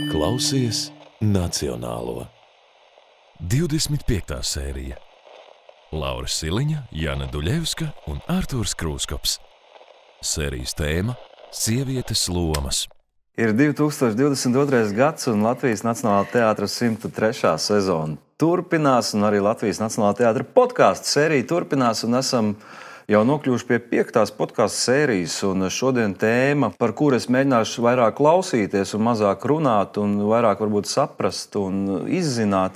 Klausies Nacionālo. 25. sērija. Laura Siliņa, Jana Duļevska un Artūrs Krūskops. Sērijas tēma – sievietes lomas. Ir 2022. gads un Latvijas Nacionālā teātra 103. sezona turpinās, un arī Latvijas Nacionālā teātra podkāstu sērija turpinās, un esam jau nokļuvuši pie 5. podkāstu sērijas, un šodien tēma, par kuru es mēģināšu vairāk klausīties un mazāk runāt, un vairāk varbūt saprast un izzināt,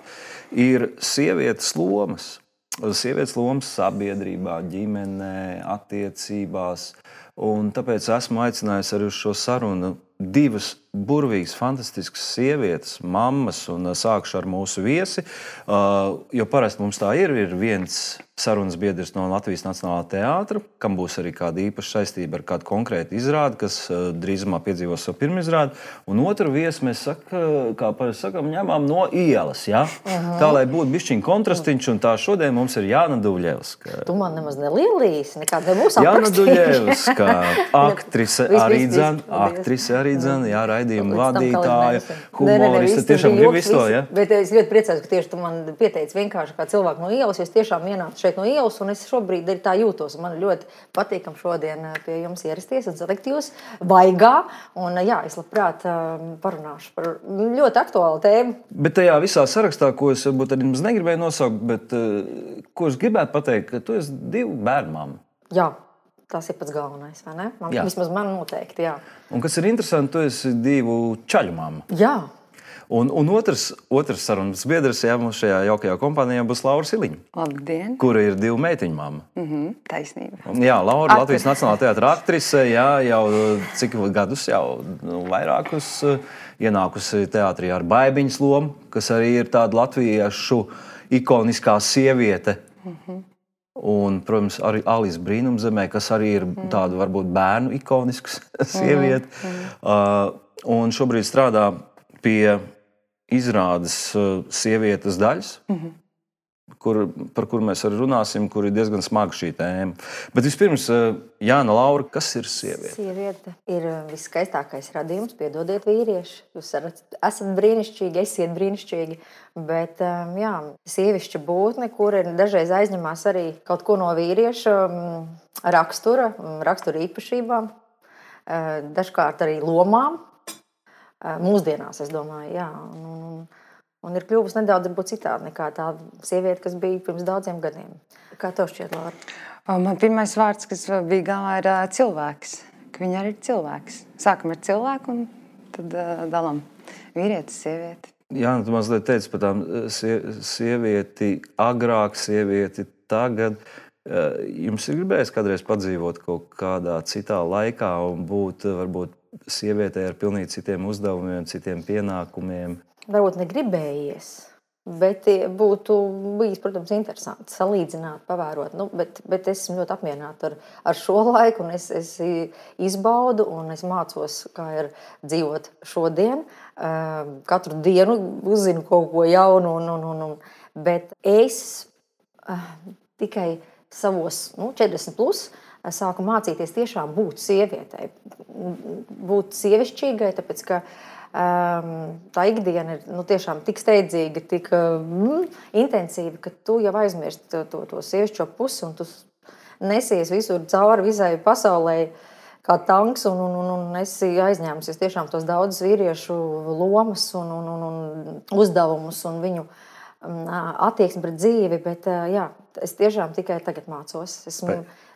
ir sievietes lomas. Sievietes lomas sabiedrībā, ģimenē, attiecībās, un tāpēc esmu aicinājis arī uz šo sarunu divas burvīgas, fantastiskas sievietes, mammas, un sākšu ar mūsu viesi, jo parasti mums tā ir viens sarunas biedrs no Latvijas Nacionālā teātra, kam būs arī kāda īpaša saistība ar kādu konkrētu izrādi, kas drīzumā piedzīvos savu pirmizrādi, un otru viesi mēs sakam, ņemam no ielas, ja? Tā, lai būtu bišķiņ kontrastiņš, un tā šodien mums ir Jāna Duļevska. Tu man nemaz nelielīs, nekāda nebūs aprakstījuši. Jāna Duļevska, aktrise arī dzene, jā, raidījuma vadītāja, humorista, tiešām grib visu to, ja? Bet es ļoti priecājos, ka tieši tu man pieteici vienkārši kā cilvēku no ielas, jo es tiešām ienācu šeit no ielas, un es šobrīd arī tā jūtos. Man ļoti patīkam šodien pie jums ierasties un salikt jūs vaigā, un jā, es labprāt parunāšu par ļoti aktuālu tēmu. Bet tajā visā sarakstā, ko es varbūt arī mums negribēju nosaukt, bet ko es gribētu pateikt, ka tu esi 2 bērnu mamma. Jā. Tas ir pats galvenais, vai ne? Vismaz man noteikti, jā. Un kas ir interesanti, tu esi 2 čaļu mamma. Jā. Un otrs sarunas biedrs, jā, mums šajā jaukajā kompānijā būs Laura Siliņa. Labdien. Kura ir 2 meitiņu mamma. Taisnība. Jā, Laura, Latvijas Nacionālā teātra aktrise, jā, jau cik gadus, jau vairākus ienākusi teātrī ar Baibiņas lomu, kas arī ir tāda latviešu ikoniskā sieviete. Un, protams, arī Alis Brīnumzemē, kas arī ir tāda varbūt bērnu ikonisks sieviete. Un šobrīd strādā pie izrādes sievietes daļas, par kuru mēs arī runāsim, kur ir diezgan smaga šī tēma. Bet vispirms, Jāna, Laura, kas ir sieviete? Sieviete ir viskaistākais radījums, piedodiet vīrieši. Jūs esat brīnišķīgi, esiet brīnišķīgi, bet jā, sievišķa būtne, kur ir dažreiz aizņemās arī kaut ko no vīrieša rakstura īpašībām, dažkārt arī lomām. Mūsdienās, es domāju, jā. Un ir kļuvusi nedaudz citādi nekā tā sieviete, kas bija pirms daudziem gadiem. Kā tev šķiet, Laura? Man pirmais vārds, kas bija galvā, ir cilvēks. Ka viņa arī ir cilvēks. Sākam ar cilvēku un tad dalam vīrietis, sievieti. Jā, tu mazliet teici par tām sievieti agrāk, sievieti tagad. Jums ir gribējis kādreiz padzīvot kaut kādā citā laikā un būt varbūt sievietei ar pilnīgi citiem uzdevumiem, citiem pienākumiem? Varbūt negribējies, bet būtu bijis, protams, interesanti salīdzināt, pavērot. Bet es esmu ļoti apmierināta ar šo laiku, un es izbaudu, un es mācos, kā ir dzīvot šodien. Katru dienu uzzinu kaut ko jaunu, bet es tikai savos 40 plus sāku mācīties tiešām būt sievietei, būt sievišķīgai, tāpēc, ka tā ikdiena ir tiešām tik steidzīga, tik intensīva, ka tu jau aizmirsti to sievišķo pusi, un tu nesies visur cauri visai pasaulē kā tanks, un esi aizņēmusies tiešām tos daudzus vīriešu lomas un uzdevumus un viņu attieksmi pret dzīvi, bet jā, es tiešām tikai tagad mācos.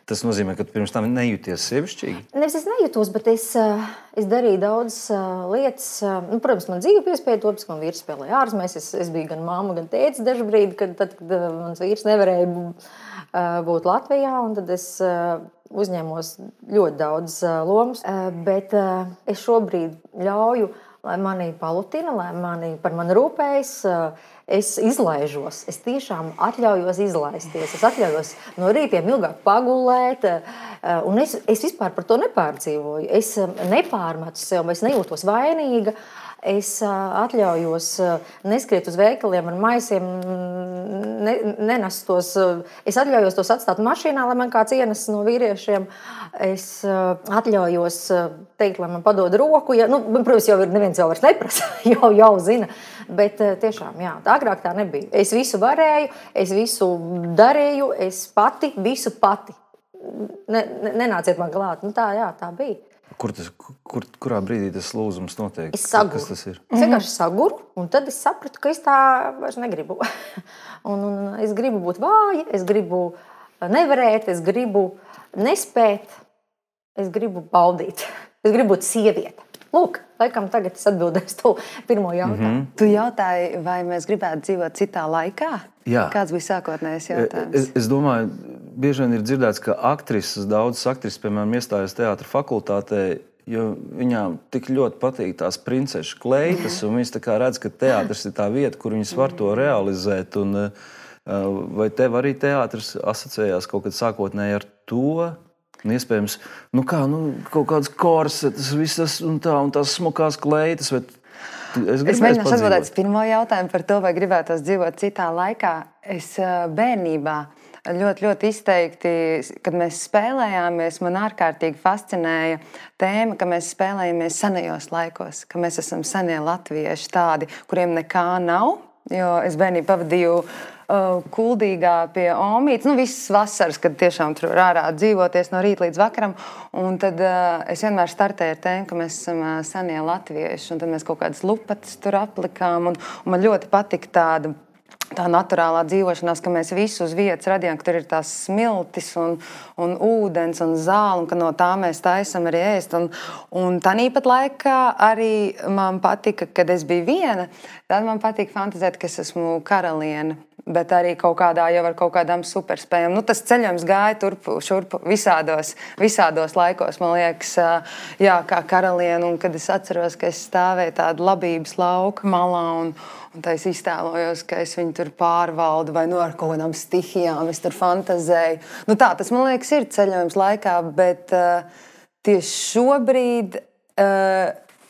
Tas nozīmē, ka tu pirms tam nejūties sievišķīgi? Nevis es nejūtos, bet es darīju daudzas lietas. Protams, man dzīve piespēja to, ka man vīrs spēlēja ārzemēs. Es biju gan mamma, gan tētis dažu brīdi, kad mans vīrs nevarēja būt Latvijā, un tad es uzņēmos ļoti daudz lomas. Bet es šobrīd ļauju, lai mani palutina, lai par mani rūpējas, es izlaižos, es tiešām atļaujos izlaisties, es atļaujos no rītiem ilgāk pagulēt, un es vispār par to nepārdzīvoju. Es nepārmetu sev, es nejūtos vainīga, es atļaujos neskriet uz veikaliem ar maisiem, nenest tos. Es atļaujos tos atstāt mašīnā, lai man kāds ienes no vīriešiem. Es atļaujos teikt, lai man padod roku. Ja, nu, protams, jau neviens jau vairs neprasa, jau zina. Bet tiešām, jā, agrāk tā nebija. Es visu varēju, es visu darīju, es visu pati. Nenāciet man klāt. Nu, tā bija. Kurā brīdī tas lūzums notiek? Es saguru. Kas tas ir? Es vienkārši saguru, un tad es sapratu, ka es tā vairs negribu. un es gribu būt vāja, es gribu nevarēt, es gribu nespēt, es gribu baudīt. Es gribu būt sieviete. Lūk, laikam tagad es atbildēšu to pirmo jautājumu. Tu jautāji, vai mēs gribētu dzīvot citā laikā? Jā. Kāds bija sākotnējais jautājums? Es domāju, bieži vien ir dzirdēts, ka daudzas aktrises, piemēram, iestājas teātra fakultātē, jo viņām tik ļoti patīk tās princešu kleitas, un viņas tā kā redz, ka teātris ir tā vieta, kur viņas var to realizēt. Un, vai tev arī teātris asociējās kaut kad sākotnēji ar to? Un iespējams, kaut kādas korsetas, visas un tās smukās kleitas. Es mēģināšu atbildēt uz pirmo jautājumu par to, vai gribētos dzīvot citā laikā. Es bērnībā ļoti izteikti, kad mēs spēlējāmies, man ārkārtīgi fascinēja tēma, ka mēs spēlējamies senajos laikos, ka mēs esam senie latvieši tādi, kuriem nekā nav. Jo es bērnību pavadīju Kuldīgā pie Omītes, visas vasaras, kad tiešām tur ārā dzīvoties no rīta līdz vakaram. Un tad es vienmēr startēju ar tēmu, ka mēs esam senie latvieši. Un tad mēs kaut kādas lupatas tur aplikām. Un man ļoti patika tā naturālā dzīvošanās, ka mēs visu uz vietas radījām, ka tur ir tās smiltis un ūdens un zāle, un ka no tā mēs taisam arī ēst. Un tāpat laikā arī man patika, kad es biju viena, tad man patika fantazēt, ka es esmu karaliene. Bet arī kaut kādām superspējām. Tas ceļojums gāja turpu, šurpu visādos laikos, man liekas, jā, kā karaliene. Un kad es atceros, ka es stāvēju tādu labības lauka malā un tā es iztēlojos, ka es viņu tur pārvaldu vai ar kaut kādām stihijām, es tur fantazēju. Tas, man liekas, ir ceļojums laikā, bet tieši šobrīd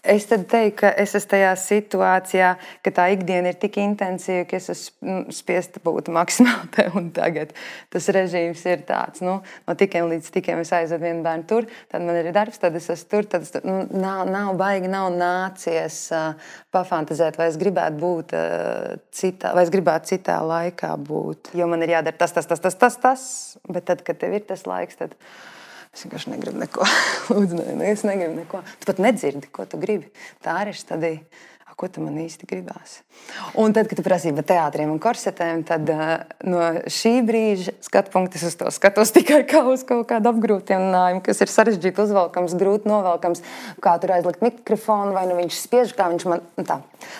es tad teiktu, ka es esmu tajā situācijā, ka tā ikdiena ir tik intensīva, ka es esmu spiesta būt maksimāli te un tagad. Tas režīms ir tāds, no tikiem līdz tikiem es aizvedu vienu bērnu tur, tad man ir darbs, tad es esmu tur, tad nav baigi, nav nācies pafantazēt, vai es gribētu būt citā, vai es gribētu citā laikā būt. Jo man ir jādara tas, bet tad, kad tev ir tas laiks, tad es vienkārši negribu neko. Lūdzu, es negribu neko. Tu pat nedzirdi, ko tu gribi. Tā arī ir stadija. Ko tu man īsti gribās? Un tad, kad tu prasīji par teātriem un korsetēm, tad no šī brīža skatu punktu es uz to skatos tikai kā uz kaut kādu apgrūtinājumu, kas ir sarežģīti uzvalkams, grūti novalkams, kā tur aizlikt mikrofonu, vai viņš spiež, kā viņš man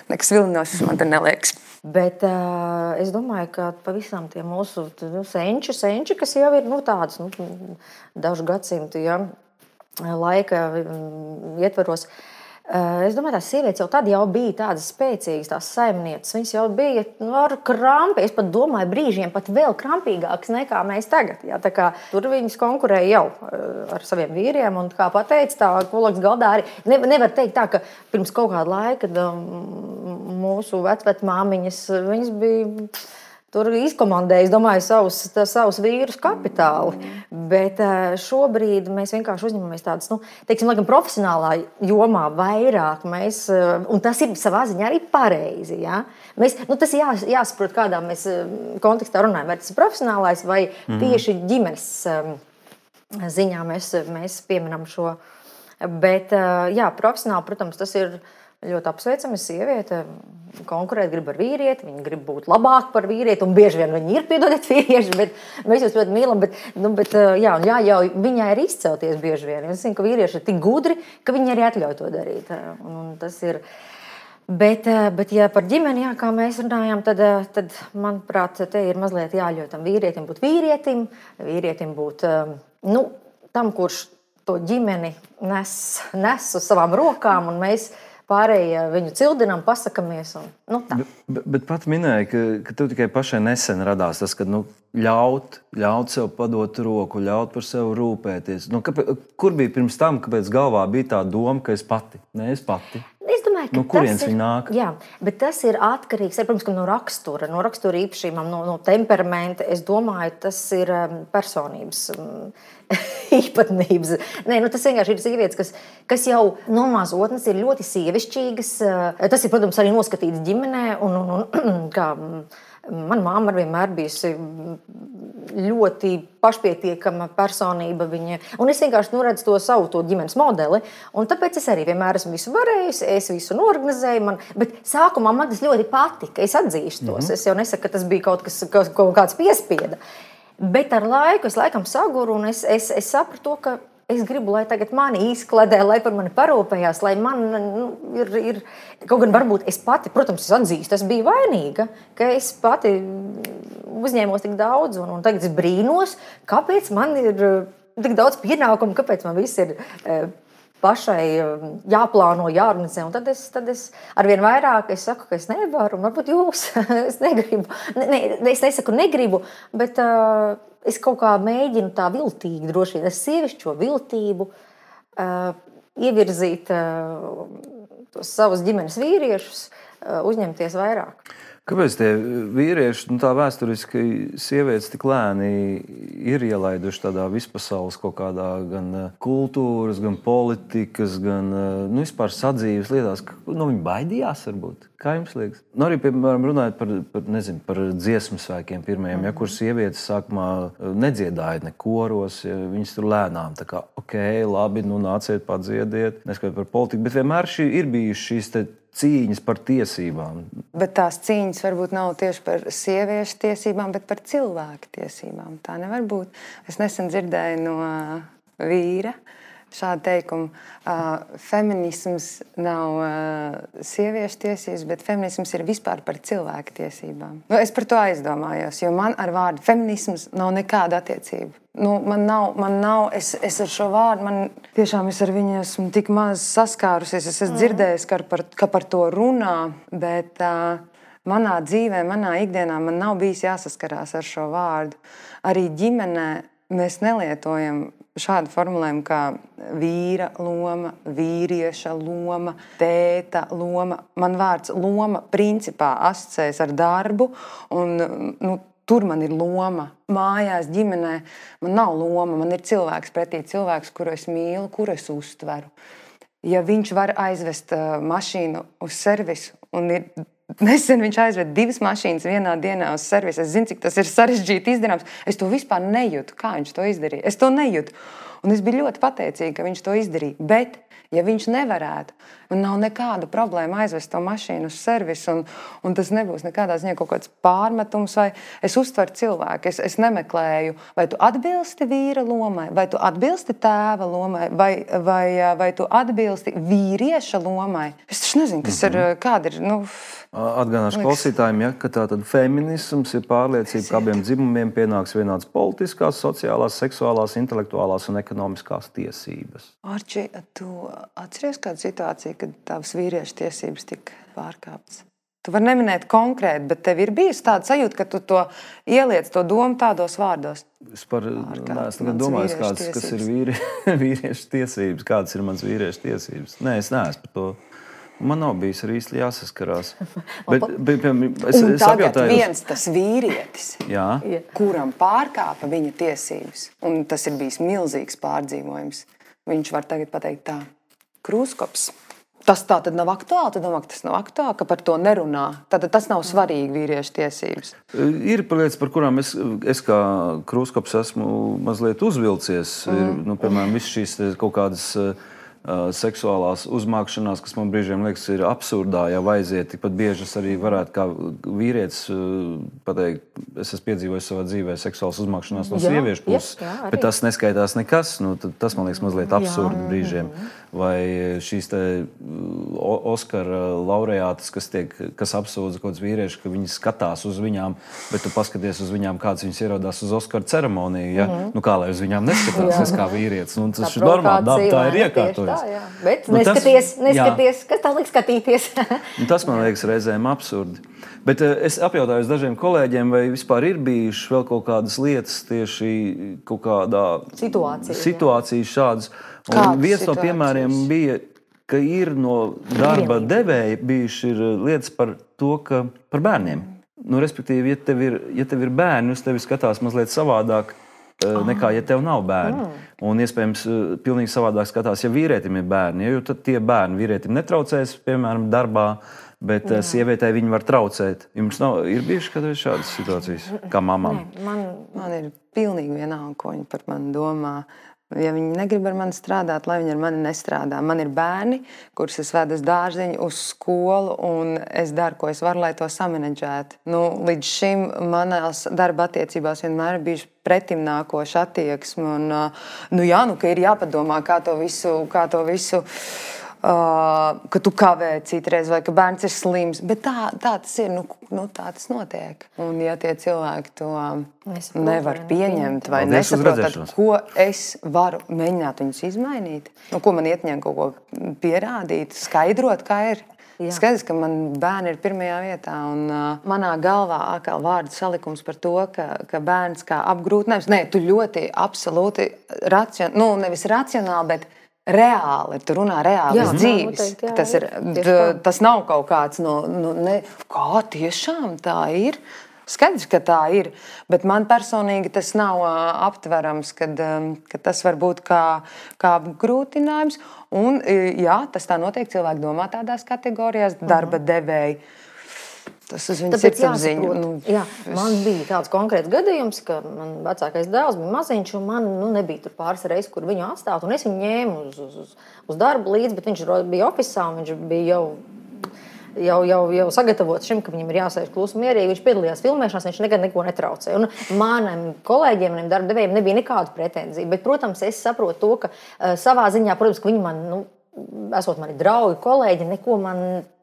nekas vilinošs man tur neliekas. Bet es domāju, ka pavisam tie mūsu senči, kas jau ir tādas dažu gadsimtu laika ietvaros, es domāju, tās sievietes jau tad bija tādas spēcīgas, tās saimnieces. Viņas jau bija ar krampi. Es pat domāju, brīžiem pat vēl krampīgākas nekā mēs tagad. Jā, tā kā tur viņas konkurēja jau ar saviem vīriem. Un, kā pateica, tā kolēģis galdā arī nevar teikt tā, ka pirms kaut kāda laika, kad mūsu vecmāmiņas, viņas bija tur izkomandēja, es domāju, savus vīrus kapitāli. Bet šobrīd mēs vienkārši uzņemamies tādas, laikam, profesionālā jomā vairāk. Un tas ir savā ziņā arī pareizi. Ja? Tas jāsaprot, kādā mēs kontekstā runājam. Vai tas ir profesionālais vai tieši ģimenes ziņā mēs pieminam šo. Bet, profesionāli, protams, tas ir ļoti apsveicami. Sieviete konkurēt grib ar vīrieti, viņa grib būt labāk par vīrieti, un bieži vien viņi ir, piedodiet, vīrieši, bet mēs jūs ļoti mīlam, bet jāļauj viņai arī izcelties bieži vien. Es zinu, ka vīrieši ir tik gudri, ka viņi arī atļauj to darīt. Un tas ir. Bet ja par ģimeni, kā mēs runājām, tad manuprāt, te ir mazliet jāļauj tam vīrietim būt vīrietim būt tam, kurš to ģimeni nes uz savām rokām, un mēs pārējie viņu cildinām, pasakamies. Bet pat minēja, ka tev tikai pašai nesen radās tas, ka ļaut sev padot roku, ļaut par sevi rūpēties. Kur bija pirms tam, kāpēc galvā bija tā doma, ka es pati? Ne, es pati. Es domāju, domāju, ka no kurienes viņi nāk? Jā, bet tas ir atkarīgs, protams, no rakstura īpašībām, no temperamenta. Es domāju, tas ir personības īpatnības. Nē, tas vienkārši ir sievietes, kas jau no mazotnes ir ļoti sievišķīgas. Tas ir, protams, arī noskatīts ģimenē. Kā mana mamma vienmēr bijusi ļoti pašpietiekama personība. Un es vienkārši redzu to savu ģimenes modeli. Un tāpēc es arī vienmēr esmu visu varējusi, es visu norganizēju. Bet sākumā man tas ļoti patika. Es atzīstu tos. Es jau nesaku, ka tas bija kaut kāds piespieda. Bet ar laiku es laikam saguru un es sapratu, ka es gribu, lai tagad mani izkladē, lai par mani parūpējās, lai man ir. Kaut gan varbūt es pati, protams, es atzīstu, es biju vainīga, ka es pati uzņēmos tik daudz, un tagad es brīnos, kāpēc man ir tik daudz pienākumu, kāpēc man viss ir pašai jāplāno, jāorganizē. Un tad es arvien vairāk saku, ka es nevaru, un varbūt jūs, es negribu. Es nesaku negribu, bet es kaut kā mēģinu tā viltīgi, droši vien, es sievišķo viltību ievirzīt tos savus ģimenes vīriešus, uzņemties vairāk. Kāpēc tie vīrieši, tā vēsturiski sievietes tik lēni ir ielaiduši tādā vispasaules kaut kādā gan kultūras, gan politikas, gan vispār sadzīves lietās? Viņi baidījās varbūt? Kā jums liekas? Arī, piemēram, runājot par dziesmu svēkiem pirmajiem, kur sievietes sākumā nedziedāja ne koros, viņas tur lēnām, tā kā, labi, nāciet padziediet, neskatīt par politiku, bet vienmēr ir bijušas šīs cīņas par tiesībām. Bet tās cīņas varbūt nav tieši par sieviešu tiesībām, bet par cilvēku tiesībām. Tā nevar būt. Es nesen dzirdēju no vīra šādu teikumu. Feminisms nav sieviešu tiesības, bet feminisms ir vispār par cilvēku tiesībām. Es par to aizdomājos, jo man ar vārdu feminisms nav nekāda attiecība. Man nav, es ar šo vārdu, tiešām es ar viņu esmu tik maz saskārusies. Es esmu dzirdējis, ka par to runā, bet manā dzīvē, manā ikdienā man nav bijis jāsaskarās ar šo vārdu. Arī ģimenē mēs nelietojam šādu formulējumu kā vīra loma, vīrieša loma, tēta loma. Man vārds loma principā asociējas ar darbu un tur man ir loma. Mājās, ģimenē man nav loma, man ir cilvēks pretī, cilvēks, kuru es mīlu, kuru es uztveru. Ja viņš var aizvest mašīnu uz servisu, un nesen viņš aizved 2 mašīnas vienā dienā uz servisu, es zinu, cik tas ir sarežģīti izdarāms, es to vispār nejūtu, kā viņš to izdarīja. Es to nejūtu. Un es biju ļoti pateicīga, ka viņš to izdarīja. Bet, ja viņš nevarētu, man nav nekāda problēma aizvest to mašīnu uz servisu, un tas nebūs nekādā ziņā kaut kāds pārmetums, vai es uztveru cilvēku, es nemeklēju, vai tu atbilsti vīra lomai, vai tu atbilsti tēva lomai, vai tu atbilsti vīrieša lomai. Es taču nezinu, kas ir, kāda ir, Atgādināšu klausītājiem, ka tātad feminisms ir pārliecība, ka abiem dzimumiem pienāks vienādas politiskās, sociālās, seksuālās, intelektuālās un ekonomiskās tiesības. Arči, tu atceries kādu situāciju, kad tavas vīriešu tiesības tika pārkāptas? Tu vari neminēt konkrēti, bet tev ir bijusi tāda sajūta, ka tu to ieliec to domu tādos vārdos. Es neesmu domājis, kas ir vīriešu tiesības, kādas ir mans vīriešu tiesības. Nē, es neesmu par to. Man nav bijis arī īsti jāsaskarās. Es tagad viens tas vīrietis, kuram pārkāpa viņa tiesības, un tas ir bijis milzīgs pārdzīvojums, viņš var tagad pateikt tā, Krūskops. Tas tā tad nav aktuāli? Tu domā, ka tas nav aktuāli, ka par to nerunā? Tātad tas nav svarīgi vīriešu tiesības? Ir lietas, par kurām es kā Krūskops esmu mazliet uzvilcies. Piemēram, viss šīs kaut kādas seksuālās uzmākšanās, kas man brīžiem liekas ir absurdā, ja aiziet. Tikpat bieži es arī varētu kā vīrietis pateikt, es esmu piedzīvojis savā dzīvē seksuālas uzmākšanās no sieviešu puses, bet tas neskaitās nekas. Tas man liekas mazliet absurdi brīžiem. Vai šīs te Oskara laureātas, kas apsūdza kaut kāds vīrieši, ka viņi skatās uz viņām, bet tu paskaties uz viņām, kāds viņas ierodās uz Oskara ceremoniju, ja? Kā lai uz viņām neskatās, es kā vīrietis. Tas ir normāli, tā ir iekārtojis. Bet neskaties, kas tā liek skatīties. Tas man liekas reizēm absurdi. Bet es apjautāju dažiem kolēģiem, vai vispār ir bijušas vēl kaut kādas lietas tieši kaut kādā situācijas šādas. Un viens no piemēriem bija ka ir no darba devēja bijuši lietas par to, ka par bērniem. Nu, respektīvi, ja tev ir bērni, uz tevi skatās mazliet savādāk nekā, ja tev nav bērni. Un iespējams, pilnīgi savādāk skatās, ja vīrietim ir bērni. Jo tad tie bērni vīrietim netraucēs, piemēram, darbā, bet sievietei viņi var traucēt. Jums ir bijuši kādreiz šādas situācijas, kā mamām? Man ir pilnīgi vienalga, ko viņi par mani domā. Ja viņi negrib ar mani strādāt, lai viņi ar mani nestrādā. Man ir bērni, kurus es vedu uz dārziņu, uz skolu, un es daru, ko es varu, lai to samanedžētu. Līdz šim manās darba attiecībās vienmēr ir bijuši pretimnākoša attieksme. Ka ir jāpadomā, kā to visu ka tu kavē citreiz, vai ka bērns ir slims. Bet tā tas ir, tā tas notiek. Un ja tie cilvēki to nevar pieņemt vai nesaprot, tad ko es varu mēģināt viņus izmainīt? Ko man ietņem kaut ko pierādīt, skaidrot, kā ir? Skaidrs, ka man bērni ir pirmajā vietā, un manā galvā atkal vārdu salikums par to, ka bērns kā apgrūtinājums, tu ļoti absolūti nevis racionāli, bet reāli, tu runā reālas dzīves. Tas nav kaut kāds kā tiešām tā ir. Skaidrs, ka tā ir, bet man personīgi tas nav aptverams, kad tas var būt kā apgrūtinājums. Un jā, tas tā notiek, cilvēki domā tādās kategorijās, darba devēji. Tas uz viņas sirdsapziņu. Man bija tāds konkrēts gadījums, ka man vecākais dēls bija maziņš, un man nebija tur pāris reizes, kur viņu atstāt, un es viņu ņēmu uz darbu līdzi, bet viņš bija ofisā, un viņš bija jau sagatavots šim, ka viņam ir jāsēž klusi mierīgi. Viņš piedalījās filmēšanās, viņš nekad neko netraucēja. Un maniem kolēģiem, maniem darba devējiem nebija nekādu pretenziju, bet, protams, es saprotu to, ka savā ziņā, protams, ka viņi man, esot mani draugi, kolēģi, neko man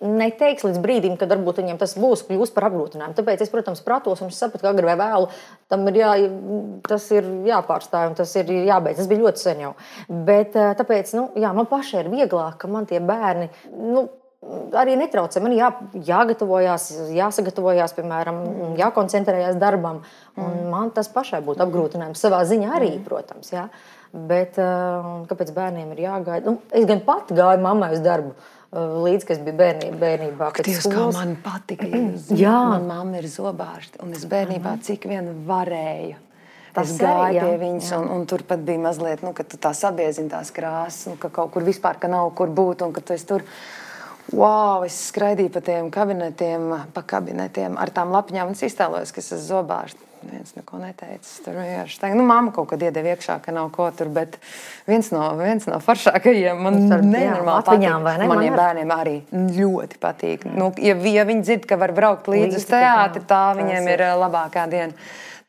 neteiks līdz brīdim, kad varbūt viņiem tas kļūst par apgrūtinājumu. Tāpēc es, protams, pratos un es sapratu, ka agri vai vēlu tas ir jāpārstāj un tas ir jābeidz. Tas bija ļoti sen jau. Bet tāpēc, man pašai ir vieglāk, ka man tie bērni, arī netraucē. Man jāsagatavojās, piemēram, jākoncentrējās darbam. Un man tas pašai būtu apgrūtinājums savā ziņā arī, protams, jā. Bet kāpēc bērniem ir jāgaida? Es gan pati gāju mammai uz darbu līdz, kas bija bērnībā. Dievs, kā man patika. Man mamma ir zobārste, un es bērnībā cik vien varēju. Es gāju pie viņas, un tur pat bija mazliet, ka tu tā sabiezini tās krāsas, ka kaut kur vispār, ka nav kur būt, un ka tu esi tur. Es skraidīju pa tiem kabinetiem ar tām lapiņām, un es iztēlojos, ka es esmu zobārste. Viens neko neteicis. Tur vienkārši tā, mamma kaut kad iedeva iekšā, ka nav ko tur, bet viens no foršākajiem man nenormāli patīk. Maniem bērniem arī ļoti patīk. Ja viņi dzird, ka var braukt līdz uz teātri, tā viņiem ir labākā diena.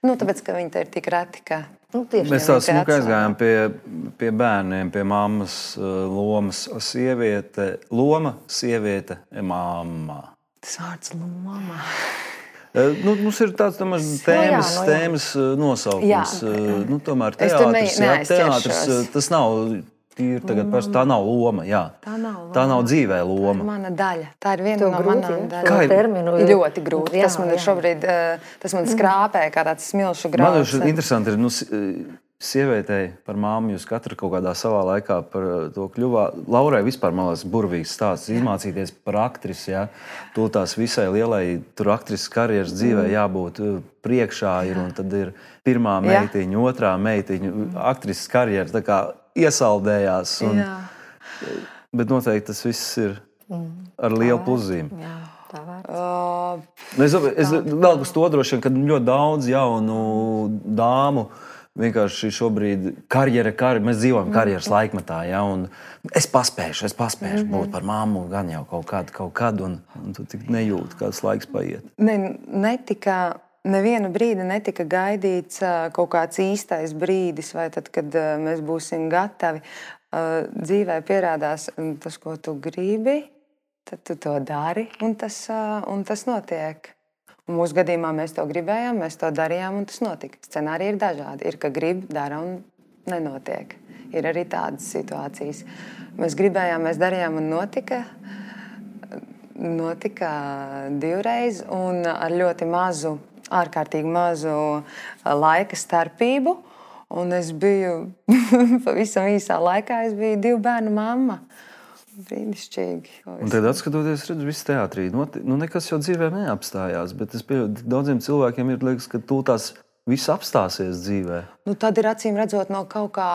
Tāpēc, ka viņi te ir tik reti, ka... Mēs tā smuki aizgājām pie bērniem, pie mammas lomas sieviete, mamma. Tas vārds loma. Mums ir tāds tēmas nosaukums. Tomēr teātris, tas nav tīri tagad parasti, tā nav loma, jā. Tā nav dzīvē loma. Tā ir mana daļa. Tā ir viena no manām daļām. Ļoti grūti. Tas man ir šobrīd, tas man skrāpē kā tāds smilšu grauds. Man interesanti ir, sievietei par māmu jūs katru kaut kādā savā laikā par to kļuvā. Laurai vispār, man liekas, burvīgs stāsts izmācīties par aktrisi, jā. To tās visai lielai tur aktrises karjeras dzīvē jābūt priekšā ir, un tad ir pirmā meitiņa, otrā meitiņa, aktrises karjera tā kā iesaldējās. Bet noteikti tas viss ir ar lielu pluzīm. Jā, tā vērts. Es vēl uz to droši vien, ka ļoti daudz jaunu dāmu vienkārši šobrīd mēs dzīvojam karjeras laikmetā, ja, un es paspēšu būt par mammu gan jau kaut kad, un tu tik nejūti, kāds laiks paiet. Nevienu brīdi netika gaidīts kaut kāds īstais brīdis, vai tad, kad mēs būsim gatavi. Dzīvē pierādās tas, ko tu gribi, tad tu to dari, un tas notiek. Un mūsu gadījumā mēs to gribējām, mēs to darījām, un tas notika. Scenāriji ir dažādi. Ir, ka grib, dara un nenotiek. Ir arī tādas situācijas. Mēs gribējām, mēs darījām un notika. Notika divreiz un ar ļoti mazu, ārkārtīgi mazu laika starpību. Un es biju pavisam īsā laikā, es biju 2 bērnu mamma. brīnišķīgi. Un tad atskatoties, redzu, viss teātrī, nekas jau dzīvē neapstājās, bet es pieļauju, daudziem cilvēkiem ir liekas, ka tās viss apstāsies dzīvē. Tad ir acīm redzot no kaut kā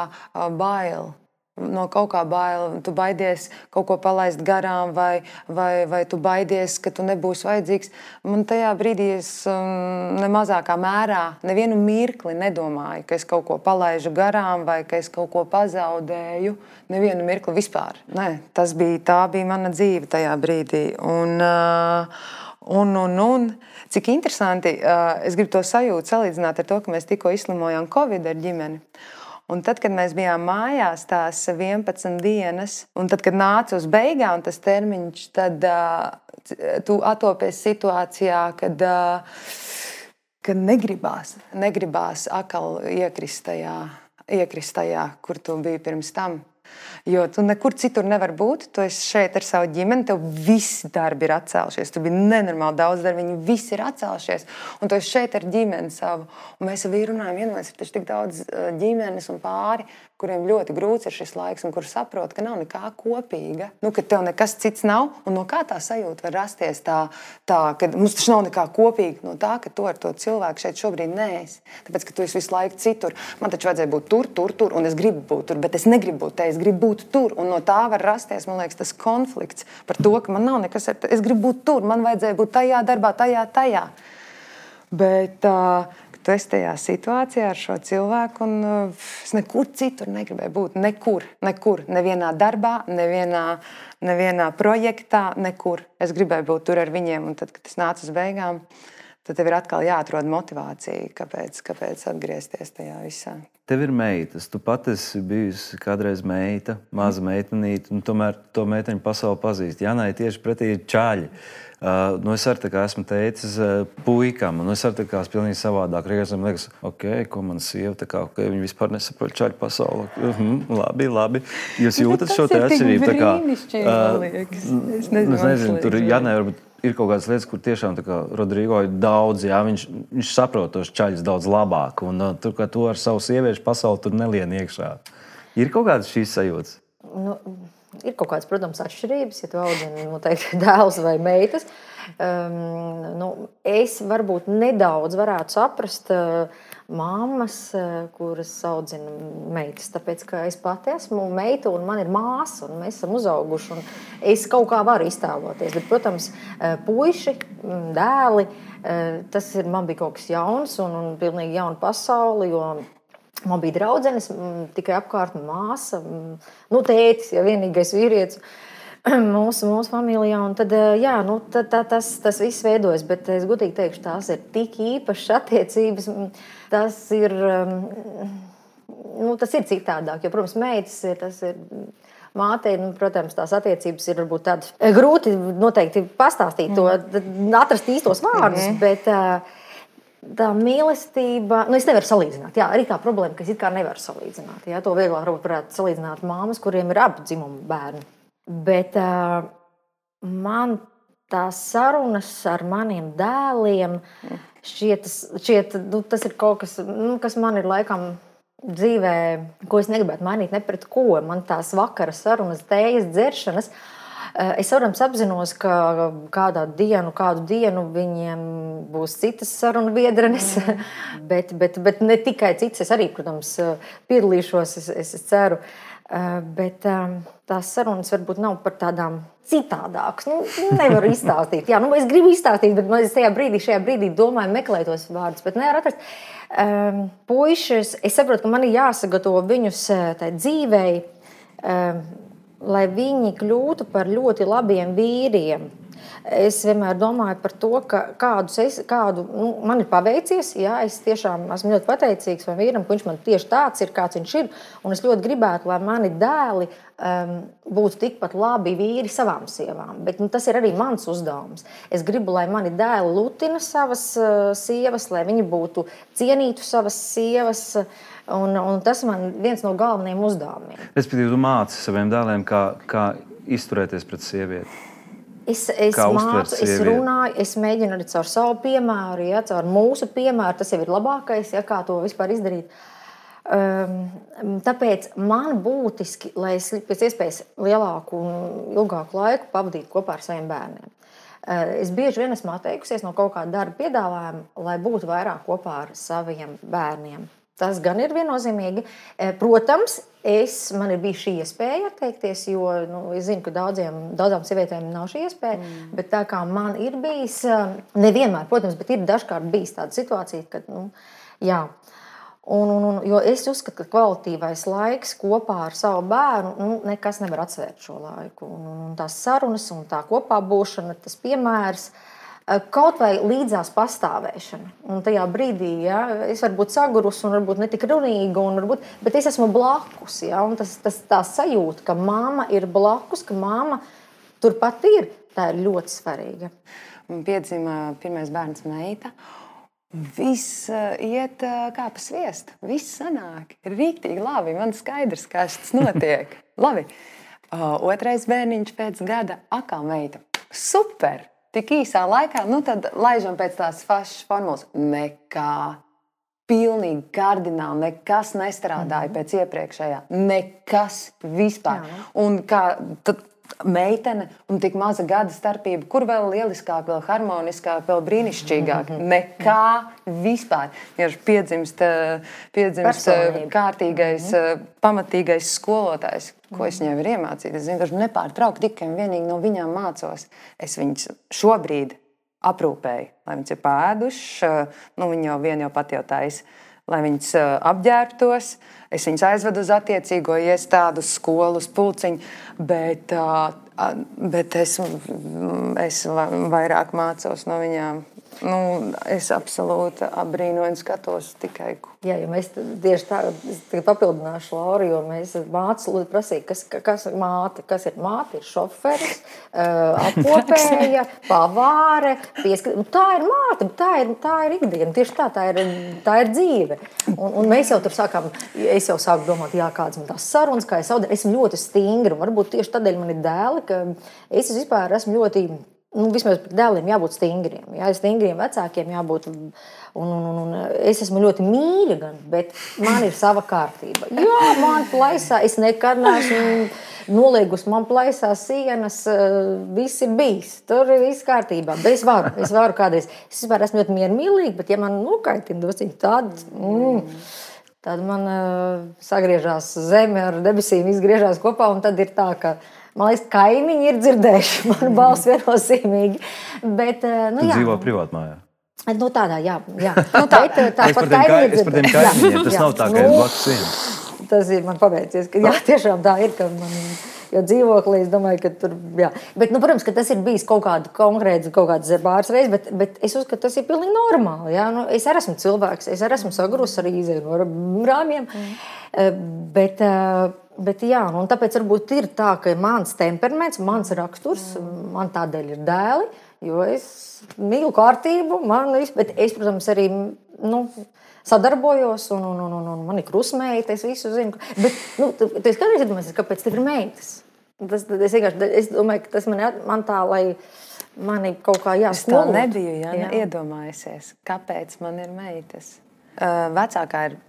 bail. No kaut kā bail, tu baidies kaut ko palaist garām, vai tu baidies, ka tu nebūsi vajadzīgs. Man tajā brīdī es nemazākā mērā nevienu mirkli nedomāju, ka es kaut ko palaižu garām vai ka es kaut ko pazaudēju. Nevienu mirkli vispār. Nē, tā bija mana dzīve tajā brīdī. Un cik interesanti, es gribu to sajūtu salīdzināt ar to, ka mēs tikko izslimojām Covid ar ģimeni. Un tad, kad mēs bijām mājās tās 11 dienas, un tad, kad nāca uz beigām tas termiņš, tad tu atopies situācijā, kad negribās atkal iekrist tajā, kur tu biji pirms tam. Jo tu nekur citur nevar būt, tu esi šeit ar savu ģimeni, tev visi darbi ir atcēlušies, tu biji nenormāli daudz darbi, viņi visi ir atcēlušies, un tu esi šeit ar ģimeni savu. Un mēs ar vīru runājam, vienmēr ir taču tik daudz ģimenes un pāri, kuriem ļoti grūts ir šis laiks un kur saprot, ka nav nekā kopīga, ka tev nekas cits nav, un no kā tā sajūta var rasties tā, ka mums taču nav nekā kopīga, no tā, ka tu ar to cilvēku šeit šobrīd neesi, tāpēc, ka tu esi visu laiku citur. Man taču vajadzēja būt tur, un es gribu būt tur, bet es negribu būt te, es gribu būt tur, un no tā var rasties, man liekas, tas konflikts par to, ka man nav nekas, es gribu būt tur, man vajadzēja būt tajā darbā, tajā. Bet tu esi tajā situācijā ar šo cilvēku, un es nekur citur negribēju būt. Nekur. Nevienā darbā, nevienā projektā, nekur. Es gribēju būt tur ar viņiem, un tad, kad es nācu uz beigām, tad tev ir atkal jāatrod motivācija, kāpēc atgriezties tajā visā. Tev ir meitas, tu pat esi bijusi kādreiz meita, maza meitenīte, un tomēr to meiteņu pasauli pazīst. Janai tieši pretī ir čaļi. Es arī tā kā esmu teicis puikam, un es arī tā kā pilnīgi savādāk. Reizēm liekas, ko man sieva, viņi vispār nesaprot čaļu pasauli. Labi. Jūs jūtat šo te atšķirību? Tas ir brīnišķīgi, man liekas. Es nezinu, tur Janai varbūt ir kaut kādas lietas, kur tiešām tā kā Rodrigo ir daudz, viņš saprot tos čaļus daudz labāk, un tur, kā tu ar savu sieviešu pasauli tur nelien iekšā. Ir kaut kādas šīs sajūtas? Ir kaut kādas, protams, atšķirības, ja tu audzini noteikti dēls vai meitas. Es varbūt nedaudz varētu saprast mammas, kuras audzina meitas, tāpēc, ka es pati esmu meita un man ir māsa, un mēs esam uzauguši, un es kaut kā varu iztēloties. Bet, protams, puiši, dēli, man bija kaut kas jauns un pilnīgi jauna pasauli, jo man bija draudzenes, tikai apkārt māsa, tētis, ja vienīgais vīrietis mūsu familijā. Un tad, tas viss veidojas, bet es godīgi teikšu, tās ir tik īpašas attiecības. Tas ir citādāk, jo, protams, meitas tas ir mātei, protams, tās attiecības ir varbūt tādas grūti noteikti pastāstīt to, atrast īstos vārdus, bet tā mīlestība, es nevaru salīdzināt. Jā, arī tā problēma, ka es it kā nevaru salīdzināt. Jā, to vieglāk varētu salīdzināt māmas, kuriem ir abu dzimumu bērni. Bet man tās sarunas ar maniem dēliem šķiet, tas ir kaut kas, kas man ir laikam dzīvē, ko es negribētu mainīt ne pret ko. Man tās vakara sarunas, tējas dzeršanas, es, protams, apzinos, ka kādu dienu viņiem būs citas sarunu biedrenes, bet ne tikai citas. Es arī, protams, piedalīšos, es ceru. Bet tās sarunas varbūt nav par tādām citādākas. Nevaru izstāstīt. Jā, es gribu izstāstīt, bet es šajā brīdī domāju, meklēju tos vārdus, bet nevaru atrast. Puišus, es saprotu, ka man ir jāsagatavo viņus tai dzīvei, lai viņi kļūtu par ļoti labiem vīriem. Es vienmēr domāju par to, ka man ir paveicies. Jā, es tiešām esmu ļoti pateicīgs man vīram, ka viņš man tieši tāds ir, kāds viņš ir. Un es ļoti gribētu, lai mani dēli būtu tikpat labi vīri savām sievām. Bet tas ir arī mans uzdevums. Es gribu, lai mani dēli lutina savas sievas, lai viņi būtu cienītu savas sievas. Un tas man viens no galvenajiem uzdevumiem. Respektīvi, tu māci saviem dēliem, kā izturēties pret sievieti. Es mācu, es runāju, es mēģinu arī caur savu piemēru, caur mūsu piemēru. Tas jau ir labākais, kā to vispār izdarīt. tāpēc man būtiski, lai es pēc iespējas lielāku un ilgāku laiku pavadītu kopā ar saviem bērniem. Es bieži vien esmu atteikusies no kaut kāda darba piedāvājuma, lai būtu vairāk kopā ar saviem bērniem. Tas gan ir viennozīmīgi. Protams, man ir bijusi šī iespēja atteikties, jo es zinu, ka daudzām sievietēm nav šī iespēja, bet tā kā man ir bijis, nevienmēr, protams, bet ir dažkārt bijis tāda situācija, kad, jā. Jo es uzskatu, ka kvalitīvais laiks kopā ar savu bērnu, nekas nevar atsvērt šo laiku. Un tās sarunas un tā kopā būšana, tas piemērs, kaut vai līdzās pastāvēšana. Un tajā brīdī, ja, es varu būt sagurusi un varbūt netik runīga, bet es esmu blakus. Ja, un tā sajūta, ka mamma ir blakus, ka mamma turpat ir, tā ir ļoti svarīga. Man piedzima pirmais bērns meita. Viss iet kā pa sviestu. Viss sanāk. Ir rīktīgi labi. Man skaidrs, kā tas notiek. Labi. Otrais bērniņš pēc gada atkal meita. Super! Tik īsā laikā, tad laižam pēc tās pašas formulas. Nekā. Pilnīgi kardināli. Nekas nestrādāja pēc iepriekšējā. Nekas vispār. Jā. Un kā tad meitene un tik maza gada starpība, kur vēl lieliskāk, vēl harmoniskāk, vēl brīnišķīgāk. Nekā vispār. Ja piedzimst kārtīgais, pamatīgais skolotājs, ko es viņai varu iemācīt. Es vienkārši nepārtraukti tikai un vienīgi no viņām mācos. Es viņas šobrīd aprūpēju, lai viņas ir pēduši, viņi jau pat jau taisa, lai viņas apģērbtos. Es viņas aizvedu uz attiecīgo iestādu, skolu, uz pulciņu, bet es vairāk mācos no viņām. Es absolūti apbrīnoju un skatos tikai. Jā, jo mēs tieši tā papildināšu Lauru, jo mēs mācu prasīja, kas ir māte. Kas ir māte? Ir šoferis, apkopēja, pavāre, tā ir māte, tā ir ikdiena. Tieši tā ir dzīve. Un mēs jau tur sākām, es jau sāku domāt, kādas man tās sarunas, kā es audinu. Esmu ļoti stingra, varbūt tieši tādēļ man ir dēli, ka es vispār esmu ļoti... vismaz par dēliem jābūt stingriem. Jā, stingriem vecākiem jābūt. Un es esmu ļoti mīļa, bet man ir sava kārtība. Jā, man plaisā, es nekad neesmu noliegusi, man plaisā sienas, viss ir bijis. Tur ir viss kārtībā. Bet es varu kādreiz. Es vispār esmu ļoti miermīlīga, bet ja man nokaitina dosiņi tad man sagriežās zeme ar debesīm, izgriežās kopā, un tad ir tā, ka man liekas, kaimiņi ir dzirdējuši manu balsi viennozīmīgi. Bet, tu dzīvo privātmājā? Tādā, jā. Tā par tiem kaimiņiem, tas nav tā, ka ir blakus sienas. Tas ir man pabeidzies, ka jā, tiešām tā ir, ka man... Jo dzīvoklī, es domāju, ka tur, jā. Bet, protams, ka tas ir bijis kaut kāds pāris reizes, bet es uzskatu, ka tas ir pilnīgi normāli. Jā. Es arī esmu cilvēks, es arī esmu sagrus arī izēju no rāmjiem. Bet jā, un tāpēc varbūt ir tā, ka mans temperaments, mans raksturs, man tādēļ ir dēli, jo es mīlu kārtību, bet es, protams, arī, sadarbojos, un man ir krustmeita, es visu zinu. Bet, tu esi kādreiz iedomājies, kāpēc tev ir meitas? Es domāju, ka tas man tā, lai mani kaut kā jāskolot. Es tā nebiju iedomājusies, kāpēc man ir meitas. Vecākā ir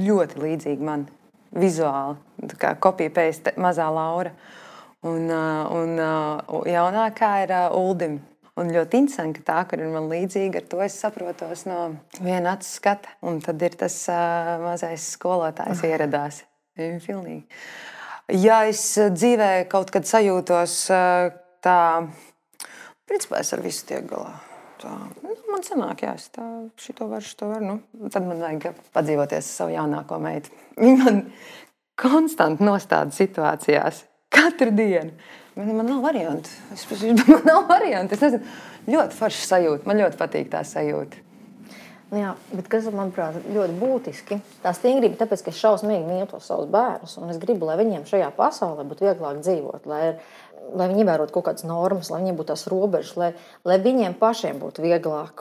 ļoti līdzīga man vizuāli, tā kā copy-paste mazā Laura. Un jaunākā ir Uldim. Un ļoti interesanti, ka tā, kur ir man līdzīga, ar to es saprotos no viena acu skata. Un tad ir tas mazais skolotājs ieradās. Pilnīgi. Ja es dzīvē kaut kad sajūtos tā, principā es ar visu tiek galā. Tā, man sanāk, jā, es tā, šito varu. Tad man vajag padzīvoties savu jaunāko meitu. Viņa man konstanti nostāda situācijās. Katru dienu. Man nav variantu. Es nezinu, ļoti forša sajūta. Man ļoti patīk tā sajūta. Jā, bet kas, manuprāt, ļoti būtiski, tā stingrība, tāpēc, ka es šausmīgi mīlu tos savus bērnus, un es gribu, lai viņiem šajā pasaulē būtu vieglāk dzīvot, lai viņi ievērotu kaut kādas normas, lai viņiem būtu tās robežas, lai viņiem pašiem būtu vieglāk.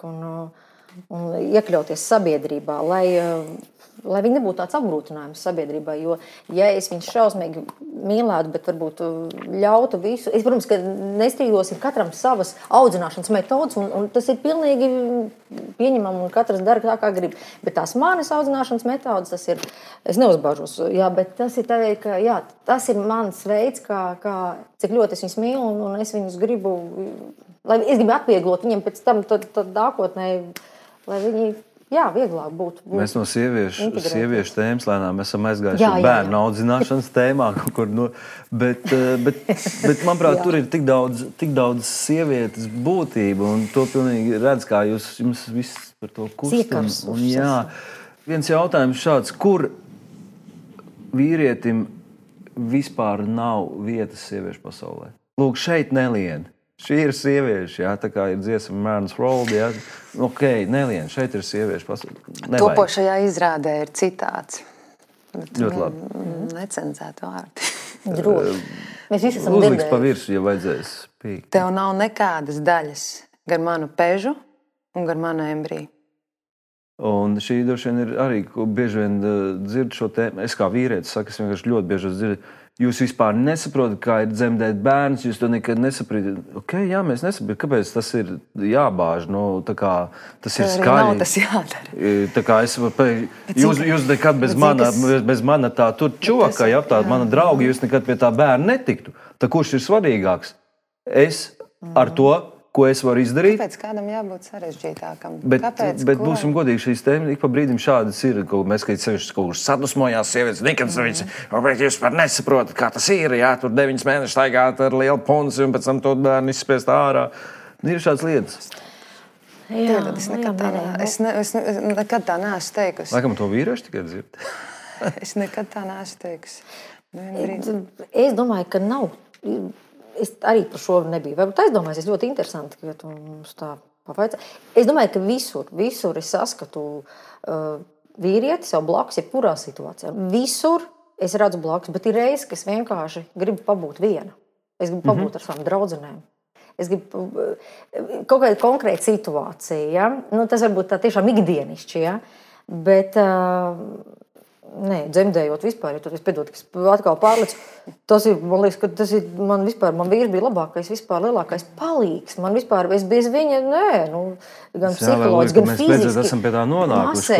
un iekļauties sabiedrībā, lai viņi nebūtu tāds apgrūtinājums sabiedrībai. Jo, ja es viņus šausmīgi mīlētu, bet varbūt ļautu visu, es, protams, ka nestrīdosim katram savas audzināšanas metodas, un tas ir pilnīgi pieņemam, un katrs dara tā, kā grib. Bet tās manas audzināšanas metodas, tas ir, es neuzbāžos, jā, bet tas ir tā, ka, jā, tas ir mans veids, cik ļoti es viņus mīlu, un es viņus gribu, es gribu atvieglot viņiem pēc tam tad nākotnē, lai viņi vieglāk būtu. Mēs no sieviešu tēmas lēnām esam aizgājuši bērnu audzināšanas tēmā. Bet, manuprāt, tur ir tik daudz sievietes būtība, un to pilnīgi redz, kā jums viss par to kustam. Viens jautājums šāds, kur vīrietim vispār nav vietas sieviešu pasaulē? Lūk, šeit nelien. Šī ir sievieši, tā kā ir dziesma Man's World, nelien, šeit ir sieviešu pasaulē. Topošajā izrādē ir citāts. Ļoti labi. Necenzēt vārdi. Droši. Mēs visi esam Uzliks pa virsu, ja vajadzēs pīkt. Tev nav nekādas daļas gar manu pežu un gar manu embriju. Un šī droši vien ir arī, ko bieži vien dzirdu šo tēmu. Es kā vīrietis saku, es vienkārši ļoti bieži dzirdu. Jūs vispār nesaprotat, kā ir dzemdēt bērns, jūs to nekad nesaprotat. Mēs nesaprotam, kāpēc tas ir jābāž. Tas ir skaļi. Nav tas jādara. Tā kā jūs nekad bez mana tā tur čoka, mana drauga, jūs nekad pie tā bērna netiktu. Tā kurš ir svarīgāks? Es ar to, ko es varu izdarīt. Kāpēc kādam jābūt sarežģītākam? Bet būsim godīgi, šīs tēmas ik pa brīdim šādas ir. Mēs, kad sevišķi kaut kur sadusmojās sievietes, bet jūs par nesaprotat, kā tas ir. Tur 9 mēnešus staigāt ar lielu punci un pēc tam to bērnu izspiest ārā. Ir šādas lietas. Es nekad tā neesmu teikusi. Laikam to vīrieši tikai dzird. Es nekad tā neesmu teikusi. Es domāju, ka nav. Es arī par šo nebiju. Varbūt aizdomājies, es ļoti interesanti, ka tu mums tā pavaicā. Es domāju, ka visur es saskatu vīrieti sev blakus, jebkurā situācijā. Visur es redzu blakus, bet ir reizes, ka es vienkārši gribu pabūt viena. Es gribu pabūt ar savām draudzenēm. Es gribu kaut kāda konkrēta situācija. Ja? Tas varbūt tā tiešām ikdienišķi, ja? Bet dzemdējot vispār, ja tur es piedod, ka es atkal pārlicu, tas ir, man liekas, ka tas ir, man vīrs bija labākais, vispār lielākais palīgs. Man vispār, es bez viņa, gan psiholoģiski, gan fiziski. Mēs esam pie tā nonākuši.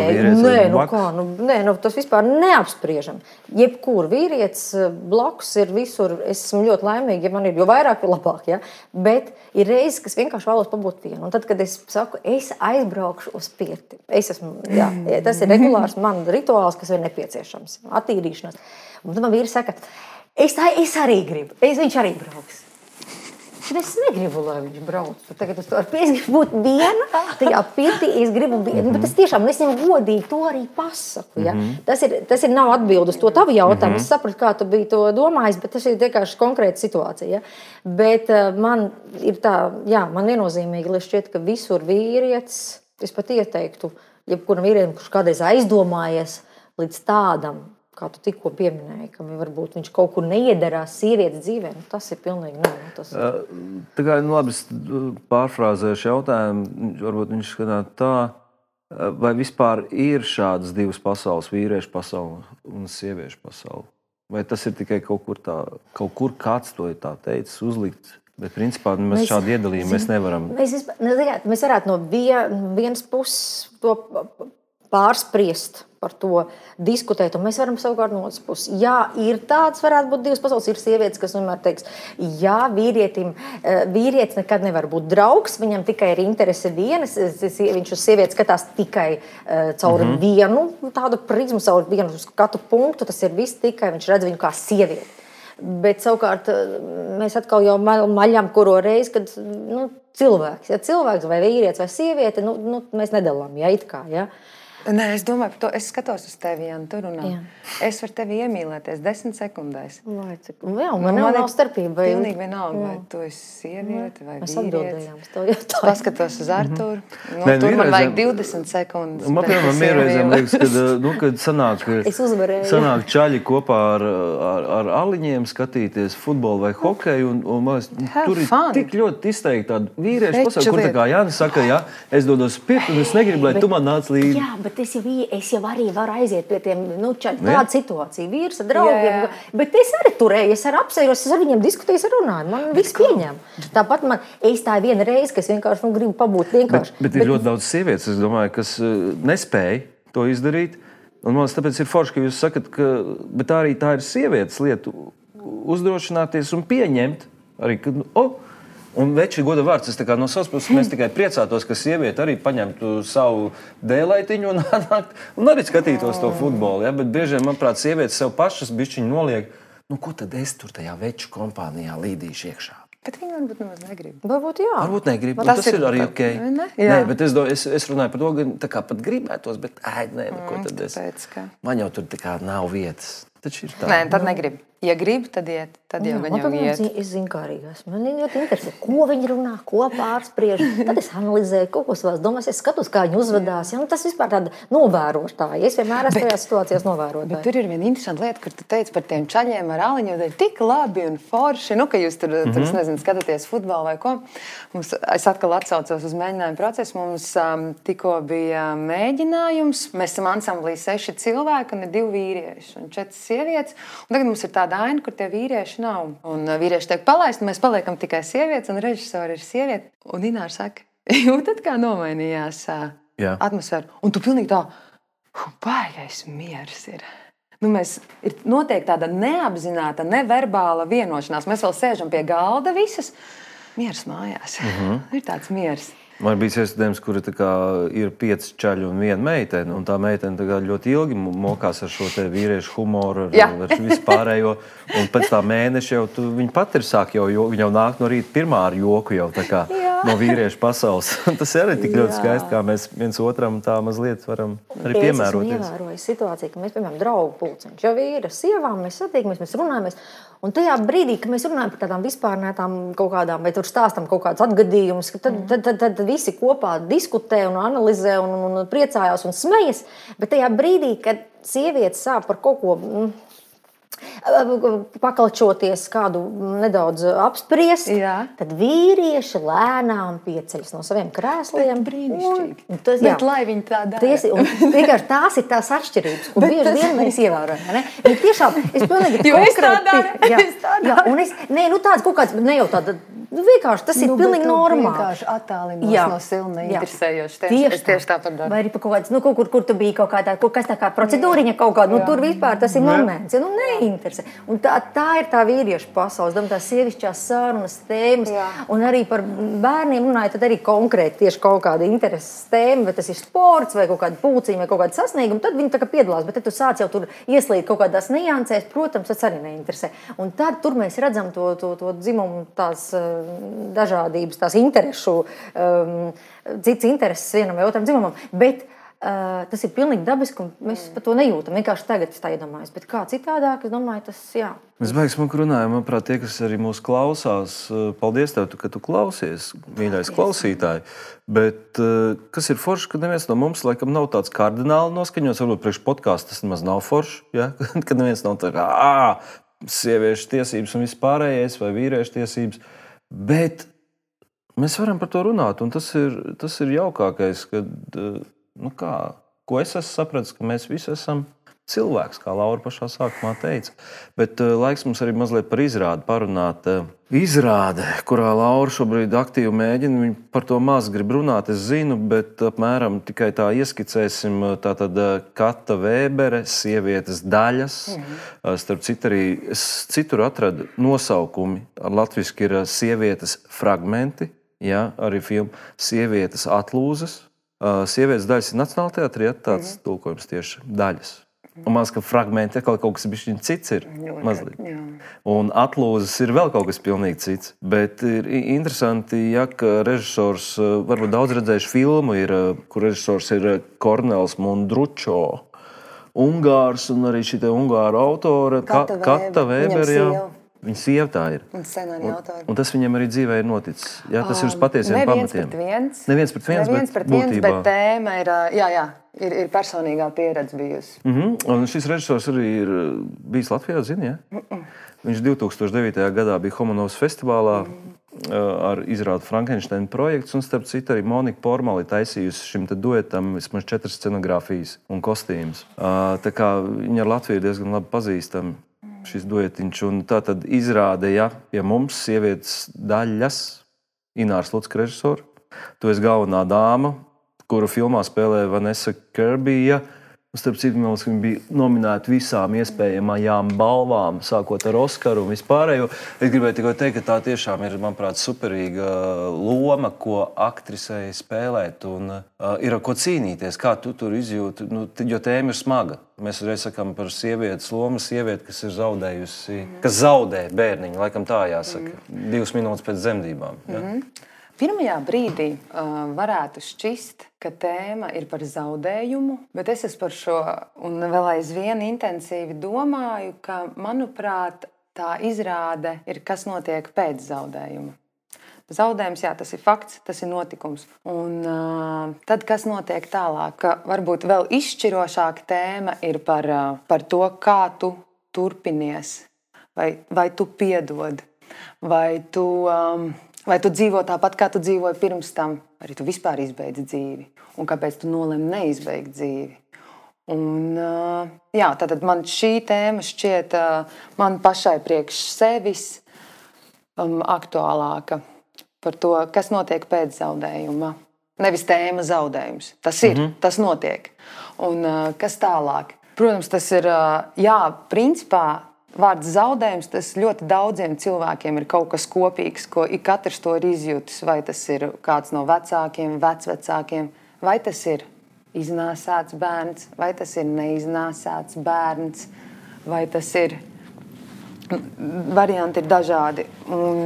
Tas vispār neapspriežam. Jebkur vīrietis blakus ir visur, es esmu ļoti laimīga, ja man ir, jo vairāk, jo labāk, ja? Bet ir reizes, kas vienkārši vēlos pabūt vienu. Un tad, kad es saku, es aizbraukšu uz pirti. Tas ir regulārs man rituāls, kas ir nepieciešams. Attīrīšanās. Un tad man vīri saka, es arī gribu. Viņš arī brauks. Bet es negribu, lai viņš brauc. Tagad es gribu būt viena, tajā pirtī es gribu viena. Bet es tiešām, es viņam godīgi to arī pasaku. Ja? Tas ir nav atbild uz to tavu jautājumu. Es sapratu, kā tu biji to domājis, bet tas ir vienkārši konkrēta situācija. Ja? Bet man ir tā, man viennozīmīgi, lai šķiet, ka visur vīrietis, es pat ieteiktu, jebkuram vīrietim, kurš kādreiz aizdomājies līdz tādam, kā tu tikko pieminēji, ka varbūt viņš kaut kur neiedarās sievietes dzīvē, tas ir pilnīgi Tā kā labi pārfrāzējuši jautājumu, varbūt viņš skatās tā, vai vispār ir šādas divas pasaules, vīriešu pasaule un sieviešu pasaule? Vai tas ir tikai kaut kur kāds to ir tā teicis, uzlikts? Bet principā mēs šādu iedalījumu mēs nevaram. Mēs varētu no vienas puses to pārspriest, par to diskutēt, un mēs varam savukārt no otras puses. Ir tāds, varētu būt divas pasaules, ir sievietes, kas vienmēr teiks, vīrietis nekad nevar būt draugs, viņam tikai ir interese vienas, viņš uz sievietes skatās tikai caur vienu tādu prizmu, caur vienu skatu punktu, tas ir viss tikai, viņš redz viņu kā sievieti. Bet savukārt mēs atkal jau maļam kuro reizi, kad cilvēks vai vīrietis vai sieviete, mēs nedalām, it kā, Nē, es domāju par to. Es skatos uz tevi, Jāni, tu runā. Jā. Es varu tevi iemīlēties 10 sekundēs. Jā, man nav starpība. Pilnīgi vienalga, vai tu esi sieviete vai Mēs vīrietis. atbildējām uz to jautājumu. Paskatos uz Arturu. Nē, Tur man vienreizēm- vajag 20 sekundes. Man, bet piemēram, es mierreizēm iemīlu. liekas, kad Es uzvarēju. sanāk čaļi kopā ar aliņiem skatīties futbolu vai hokeju, un man liekas, Have tur ir fun. tik ļoti izteikti tādi vīrieši, Taču pasauli, kur tā lieta. kā Jānis saka, jā, es dodos pirkt, un es negribu, lai tu man nāc līdzi. Jā, bet es jau arī varu aiziet pie tiem, Jā. tāda situācija, vīrs ar draugiem. Jā. Bet es arī turēju, es arī apsējos, es ar viņiem diskutēju, es runāju. Man viss pieņem. Tāpat man, es tā viena reize, ka es vienkārši gribu pabūt vienkārši. Bet ir ļoti daudz sievietes, es domāju, kas nespēja to izdarīt. Un man liekas, tāpēc ir forši, ka jūs sakat, bet arī tā ir sievietes lieta uzdrošināties un pieņemt arī, ka, un veči goda vārds, es tā kā no savas puses mēs tikai priecātos, ka sieviete arī paņemtu savu dēlaitiņu un nākt un arī skatītos to futbolu. Ja? Bet bieži, manuprāt, sievietes sev pašas bišķiņi noliek, ko tad es tur tajā veču kompānijā līdīšu iekšā? Bet viņi varbūt nemaz negrib. Varbūt jā. Varbūt negrib, Tas tas ir ir arī tā- ok. ne? Nē, Jā. bet es runāju par to, ka tā kā pat gribētos, bet nē, ko tad es? Tāpēc, ka... Man jau tur tā kā nav vietas. Taču ir tā. Nē, tad negrib. Ja grib, tad iet. Tad jau Man, gan jau piemēram, iet. es zinu, kā arī esmu. Man ļoti interesē, ko viņi runā, ko pārspriež. Tad es analizēju, kaut ko savās domās, es skatos, kā viņi uzvedās. Ja? Tas vispār tāda novērotāja. Es vienmēr esmu tajās situācijās Bet novērotāja. tur ir viena interesanta lieta, kur tu teici par tiem čaļiem ar aliņu. Tā ir tik labi un forši, ka jūs tur es nezinu, skatāties futbolu vai ko. Es atkal atsaucos uz mēģinājumu procesu. Mums tikko bija mēģinājums. Mēs esam ansamblī 6 cilvēki un ir 2 vīrieši un 4 sievietes. Un tagad mums ir tāda aina, kur tie vīrieši nav. Un vīrieši tiek palaisti, un mēs paliekam tikai sievietes, un režisori ir sieviete. Un Ināra saka, jūtat, kā nomainījās Jā. atmosfēra. Un tu pilnīgi tā, baigais miers ir. Ir noteikti tāda neapzināta, neverbāla vienošanās. Mēs vēl sēžam pie galda visas. Miers mājās. Ir tāds miers. Man bija iestādījums, kur ir 5 čaļi un 1 meitene. Un tā meitene ļoti ilgi mokās ar šo vīriešu humoru, ar vispārējo. Un pēc tā mēneša jau viņa pati ir sāk, viņa jau nāk no rīta pirmā ar joku jau tā kā no vīriešu pasaules. Tas ir arī tik ļoti skaisti, kā mēs viens otram tā mazliet varam arī piemēroties. Es ievēroju situāciju, ka mēs, piemēram, draugu pulciņš jau ir ar sievām, mēs satiekamies, mēs runājamies. Un tajā brīdī, kad mēs runājam par tādām vispārnētām kaut kādām, vai tur stāstam kaut kādus atgadījumus, tad visi kopā diskutē un analizē un priecājās un smejas. Bet tajā brīdī, kad sievietes sāk par kaut ko pakalčoties, kādu nedaudz apspriest, tad vīrieši lēnām pieceļas no saviem krēsliem. Brīnišķīgi. Bet lai viņi tā dara. Tās ir tās atšķirības, ko bieži vien mēs ievērojam. Viņi tiešām, es pilnīgi Jo es tā daru, jā, un es, tāds kaut kāds, ne jau tāda, vienkārši tas ir pilnīgi normāli. Vienkārši attālinos no silna interesējoši. Tieši tāpat daru. Vai arī pa kaut kāds, kur tu biji kaut kādā, kas tā kā procedūriņa kaut kāda, tur vispār tas ir moments, neinteresē. Un tā ir tā vīriešu pasaules, tās sievišķās sarunas tēmas, un arī par bērniem runāja, tad arī konkrēti tieši kaut kāda intereses tēma, vai tas ir sports, vai kaut kāda pulciņa, vai kaut kāda sasnieguma, tad viņi tā kā piedalās, bet tad tu sāc jau tur ieslīd kaut kādās niansēs, protams, tas arī neinteresē. Un tad tur mēs redzam to dzimumu tās dažādības, tās interesu, cits intereses vienam vai otram dzimumam, bet tas ir pilnīgi dabiski, un mēs par to nejūtam. Vienkārši tagad es tā iedomājos, bet kā citādāk, es domāju, tas jā. Mēs beigas smuki runājam, manuprāt, tie, kas arī mūs klausās, paldies tev, ka tu klausies, mīļais klausītāji. Bet kas ir forši, ka neviens no mums laikam nav tāds kardināli noskaņots, varbūt priekš podcasts tas nemaz nav forši, ja? Kad neviens nav tā kā sieviešu tiesības un vispārējais vai vīriešu tiesības, bet mēs varam par to runāt, un tas ir jaukākais, kad ko es esmu sapratis, ka mēs visi esam cilvēks, kā Laura pašā sākumā teica. Bet laiks mums arī mazliet par izrādi parunāt. Izrāde, kurā Laura šobrīd aktīvi mēģina, viņa par to maz grib runāt, es zinu, bet apmēram tikai tā ieskicēsim. Tātad Kata Vēbere, sievietes daļas. Starp citu arī es citur atradu nosaukumi. Latviski ir sievietes fragmenti, arī filma sievietes atlūzes. Sievietes daļas ir Nacionālajā teātrī, tāds tulkojums tieši daļas. Un maz, ka fragmenti kaut kas bišķiņ cits ir. Mazliet. Jā. Un atlūzas ir vēl kaut kas pilnīgi cits. Bet ir interesanti, ja ka režisors, varbūt daudz redzējuši filmu, kur režisors ir Kornels Mundručo, Ungārs, un arī šī ungāru autore Kata Vēbere. Viņa sieva tā ir. Un tas viņam arī dzīvē ir noticis. Jā, tas ir uz patiesiem pamatiem. Neviens pret viens, bet tēma ir personīgā pieredze bijusi. Un šis režisors arī ir bijis Latvijā, zini, ja? Viņš 2009. gadā bija Homanovas festivālā ar izrādu Frankensteina projekts, un starp citu arī Monika Pormali taisījusi šim te duetam vismaz 4 scenogrāfijas un kostīmus. Tā kā viņa ar Latviju diezgan labi pazīstama. Šis duetiņš, un tā tad izrāde, ja pie mums sievietes daļas Ināras Lucka režisora. Tu esi galvenā dāma, kuru filmā spēlē Vanessa Kirbyja. Starp citu, viņa bija nominēta visām iespējamajām balvām, sākot ar Oskaru un vispārējo. Es gribēju tikai teikt, ka tā tiešām ir, manuprāt, superīga loma, ko aktrisei spēlēt, un ir ar ko cīnīties, kā tu tur izjūti, jo tēma ir smaga. Mēs reiz sakām par sievietes lomu, sievieti, kas ir zaudējusi, kas zaudē bērniņu, laikam tā jāsaka, 2 minūtes pēc dzemdībām. Ja? Pirmajā brīdī varētu šķist, ka tēma ir par zaudējumu, bet es par šo un vēl aizvien intensīvi domāju, ka, manuprāt, tā izrāde ir, kas notiek pēc zaudējuma. Zaudējums, jā, tas ir fakts, tas ir notikums. Un tad, kas notiek tālāk, ka varbūt vēl izšķirošāka tēma ir par to, kā tu turpinies, vai tu piedod, vai tu dzīvo tāpat, kā tu dzīvoji pirms tam, arī tu vispār izbeidzi dzīvi, un kāpēc tu nolemi neizbeigt dzīvi. Un, jā, tātad man šī tēma šķiet man pašai priekš sevis aktuālāka par to, kas notiek pēc zaudējuma. Nevis tēma zaudējums. Tas ir, tas notiek. Un kas tālāk? Protams, tas ir, jā, principā, vārds zaudējums, tas ļoti daudziem cilvēkiem ir kaut kas kopīgs, ko katrs to ir izjutis. Vai tas ir kāds no vecākiem, vecvecākiem, vai tas ir iznāsāts bērns, vai tas ir neiznāsāts bērns, vai tas ir... Varianti ir dažādi. Un,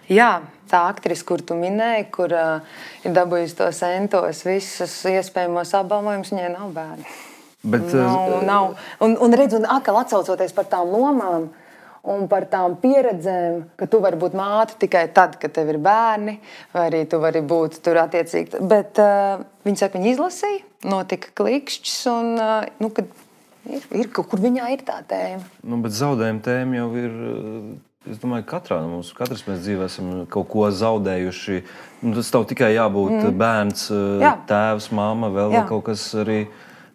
jā, tā aktrise, kur tu minēji, kur ir dabūjusi tos entos, visus iespējamos apbalvojumus, viņai nav bērni. Bet, nav. Un redz, un atkal atsaucoties par tām lomām un par tām pieredzēm, ka tu vari būt māte tikai tad, kad tev ir bērni, vai arī tu vari būt tur attiecīgi. Bet viņi saka, viņi izlasīja, notika klikšķis, un kad ir kaut kur viņā ir tā tēma. Bet zaudējuma tēma jau ir, es domāju, katrā no mums. Katrs mēs dzīvē esam kaut ko zaudējuši. Tas tev tikai jābūt bērns, tēvs, mamma, vēl kaut kas arī...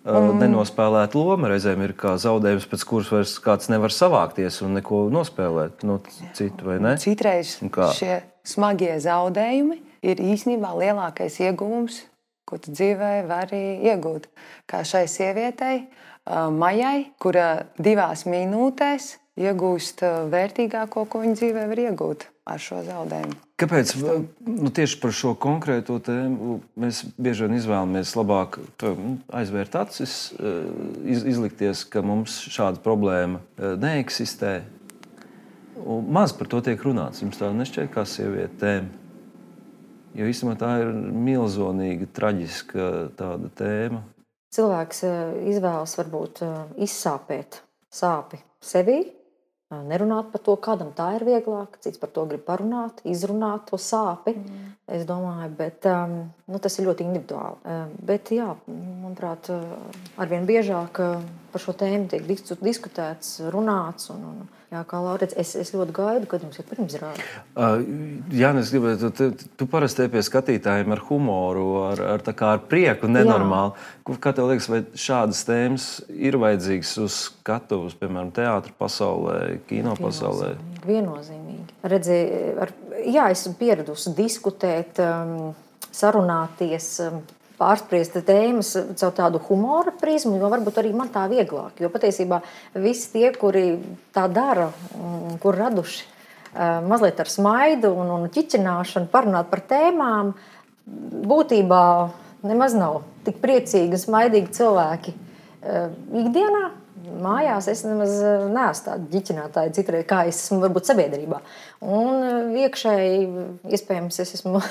nenospēlēt loma reizēm ir kā zaudējums, pēc kuras vairs kāds nevar savākties un neko nospēlēt no citu, vai ne? Citreiz šie smagie zaudējumi ir īstenībā lielākais ieguvums, ko tu dzīvē vari iegūt. Kā šai sievietei, Majai, kura 2 minūtēs iegūst vērtīgāko, ko viņa dzīvē var iegūt ar šo zaudējumu. Kāpēc tieši par šo konkrēto tēmu mēs bieži vien izvēlamies labāk aizvērt acis, izlikties, ka mums šāda problēma neeksistē? Un maz par to tiek runāts. Jums tā nešķiet kā sieviete tēma? Jo īstenībā tā ir milzonīga, traģiska tāda tēma. Cilvēks izvēlas varbūt izsāpēt sāpi sevī, nerunāt par to, kādam tā ir vieglāk, cits par to grib parunāt, izrunāt to sāpi, es domāju, bet tas ir ļoti individuāli. Bet jā, manuprāt, arvien biežāk par šo tēmu tiek diskutēts, runāts, un jā, kā Laurits, es ļoti gaidu, kad jums ir pirmizrāde. Jānis, gribētu, tu parasti pie skatītājiem ar humoru, ar prieku, nenormāli. Kā tev liekas, vai šādas tēmas ir vajadzīgas uz skatuves, piemēram, teātra pasaulē, kino pasaulē? Viennozīmīgi. Redzi, jā, esmu pieradusi diskutēt, sarunāties, pārspriest tēmas caur tādu humora prizmu, jo varbūt arī man tā vieglāk. Jo patiesībā visi tie, kuri tā dara, kur raduši mazliet ar smaidu un ķiķināšanu, parunāt par tēmām, būtībā nemaz nav tik priecīgi un smaidīgi cilvēki. ikdienā. Mājās es nemaz neesmu tāda ģiķinātāja citreiz, kā es esmu varbūt sabiedrībā. Un iekšēji, iespējams, es esmu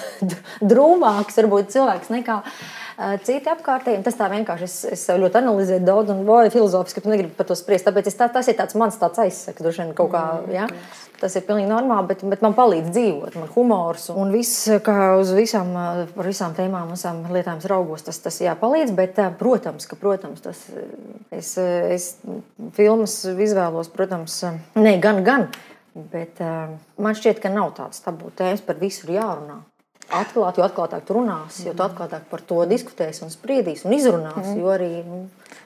drūmāks varbūt cilvēks nekā citi apkārtēji. Tas tā vienkārši, es ļoti analizēju daudz un filozofiski, ka negribu par to spriest. Tāpēc tas ir tāds mans tāds aizsaka, droši vien kaut kā, ja? Tas ir pilnīgi normāli, bet man palīdz dzīvot, man humors un viss, kā uz par visām tēmām, visām lietām raugos, tas jāpalīdz, bet, protams, tas, es filmas izvēlos, protams, ne, gan, bet man šķiet, ka nav tāds tabū tēmas, par visu ir jārunā. Atklāt, jo atklātāk tu runās, jo tu atklātāk par to diskutēs un spriedīs un izrunās, jo arī...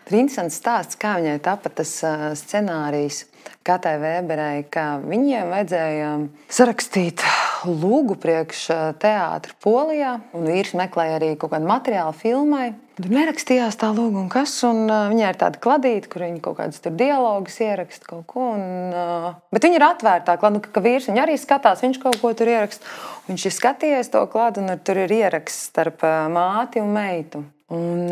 Ir interesants stāsts, kā viņai tapa tas scenārijs Katai Vēberei, ka viņiem vajadzēja sarakstīt lūgu priekš teātra Polijā, un vīrs meklēja arī kaut kādu materiālu filmai. Tur nerakstījās tā lūga un kas, un viņai ir tāda kladīte, kur viņi kaut kādas tur dialogus ieraksta kaut ko, bet viņi ir atvērtā klāda, ka vīrs viņu arī skatās, viņš kaut ko tur ieraksta. Viņš ir skatījies to klādu, un tur ir ieraksts starp māti un meitu. Un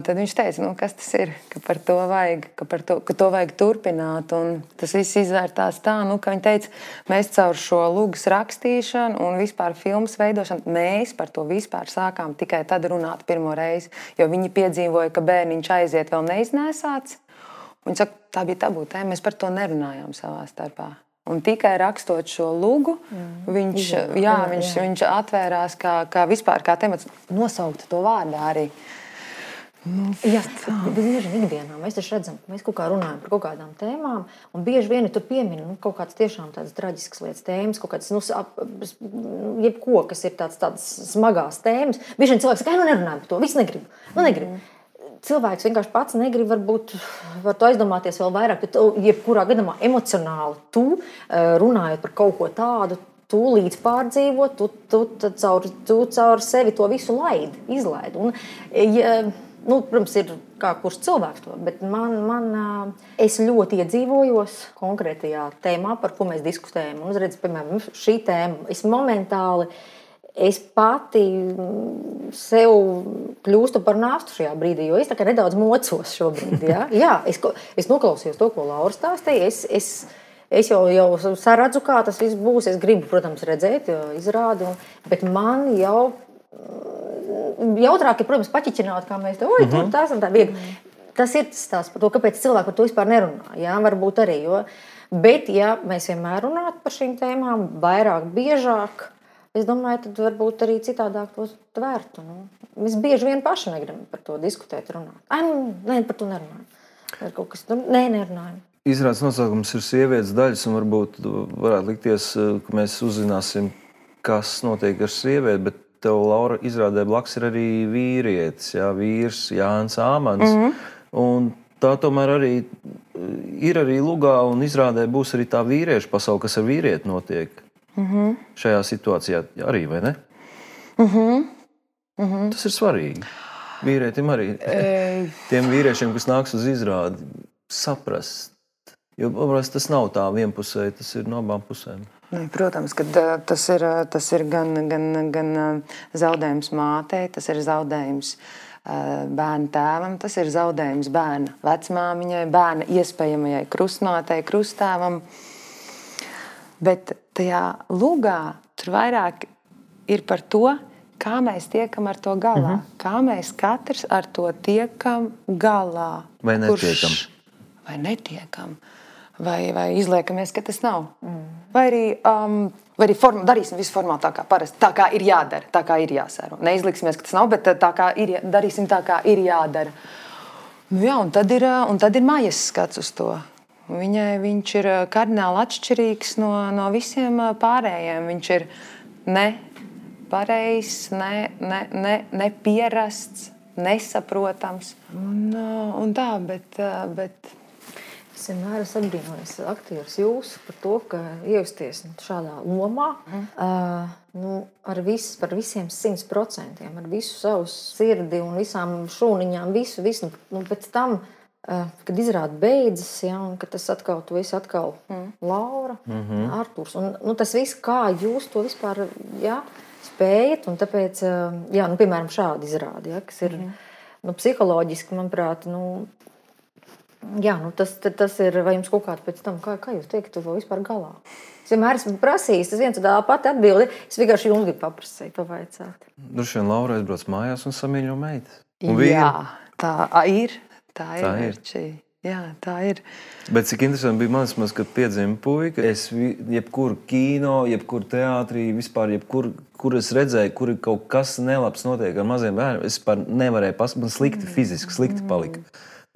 tad viņš teica, kas tas ir, ka par to vajag, ka to vajag turpināt. Un tas viss izvērtās tā, ka viņi teica, mēs caur šo lūgas rakstīšanu un vispār filmas veidošanu, mēs par to vispār sākām tikai tad runāt pirmo reizi, jo viņi piedzīvoja, ka bērniņš aiziet vēl neiznēsāts. Viņi saka, tā bija tabū tēma, mēs par to nerunājām savā starpā. Un tikai rakstot šo lūgu, viņš atvērās kā vispār kā temats, nosaukt to vārdā arī. Jā, bieži vien ikdienā mēs taču redzam, ka mēs kaut kā runājam par kaut kādām tēmām, un bieži vien tur piemina kaut kādas tiešām tādas traģiskas lietas tēmas, kaut kādas, jebko, kas ir tādas smagās tēmas. Bieži vien cilvēks saka, nerunājam par to, viss negrib. Cilvēks vienkārši pats negrib, varbūt var to aizdomāties vēl vairāk, bet jebkurā gadījumā emocionāli tu, runājot par kaut ko tādu, tu līdz pārdzīvot, tu caur sevi to visu izlaid. Un, protams, ir kā kurš cilvēks to, bet es ļoti iedzīvojos konkrētajā tēmā, par ko mēs diskutējam. Un, redz, piemēram, šī tēma, es pati sev kļūstu par nāstu šajā brīdī, jo es tā kā nedaudz mocos šobrīd. Ja? Jā, es noklausījos to, ko Laura stāstīja. Es jau saredzu, kā tas viss būs. Es gribu, protams, redzēt izrādi, bet man jau jautrāk ir, protams, paķiķināt, kā mēs tur tās un tā viegli. Tas ir tas stāsts par to, kāpēc cilvēki par to vispār nerunā. Jā, varbūt arī. Bet, ja mēs vienmēr runātu par šīm tēmām, vairāk, biežāk, es domāju, tad varbūt arī citādāk to tvērtu. Mēs bieži vien paši negribam par to diskutēt, runāt. Nē, par to nerunājam. Ir kaut kas, nerunājam. Izrādes nosaukums ir sievietes daļas, un varbūt varētu likties, ka mēs uzzināsim, kas notiek ar sievieti, bet tev, Laura, izrādē blakus ir arī vīrietis, vīrs Jānis Āmans. Un tā tomēr arī ir arī lugā, un izrādē būs arī tā vīriešu pasaule, kas ar vīrieti notiek. Šajā situācijā arī, vai ne? Tas ir svarīgi. Vīrietim arī. Tiem vīriešiem, kas nāks uz izrādi, saprast. Jo tas nav tā vienpusēji, tas ir no abām pusēm. Protams, ka tas ir gan zaudējums mātei, tas ir zaudējums bērna tēvam, tas ir zaudējums bērna vecmāmiņai, bērna iespējamajai krustmātei, krusttēvam. Bet tajā lugā tur vairāk ir par to, kā mēs tiekam ar to galā. Kā mēs katrs ar to tiekam galā. Vai netiekam. Vai netiekam. Vai izliekamies, ka tas nav. Vai arī darīsim visu formāli tā kā parasti. Tā kā ir jādara, tā kā ir jāsēro. Neizliksimies, ka tas nav, bet tā kā darīsim tā kā ir jādara. Un tad ir Maijas skats uz to. Viņš ir kardināli atšķirīgs no visiem pārējiem. Viņš ir nepareizs, nepierasts, nesaprotams. Un tā, bet... Es vienmēr esmu apbrīnojis aktierus jūsu par to, ka iejusties šādā lomā par visiem 100%, ar visu savu sirdi un visām šūniņām, visu. Pēc tam, kad izrāda beidzas, un kad tas atkal, tu esi atkal Laura, Artūrs. Un tas viss, kā jūs to vispār spējat, un tāpēc, piemēram, šādi izrādi, kas ir psiholoģiski, manuprāt, Jā, nu tas ir, vai jums kaut kāds pēc tam, kā jūs teikt, tu vēl vispār galā? Es vienmēr esmu prasījis, tas viens un tā pati atbildi, es vienkārši jums gribu paprasīt, pavaicāt. Droši vien Laura aizbrauc mājās un samīļo meitas. Jā, tā ir. Jā, tā ir. Bet cik interesanti bija manis, kad piedzima puika, es jebkuru kino, jebkuru teātrī, vispār kur es redzēju, kur ir kaut kas nelabs notiek ar maziem bērniem, es par nevarēju pasakāt, man slikti palika.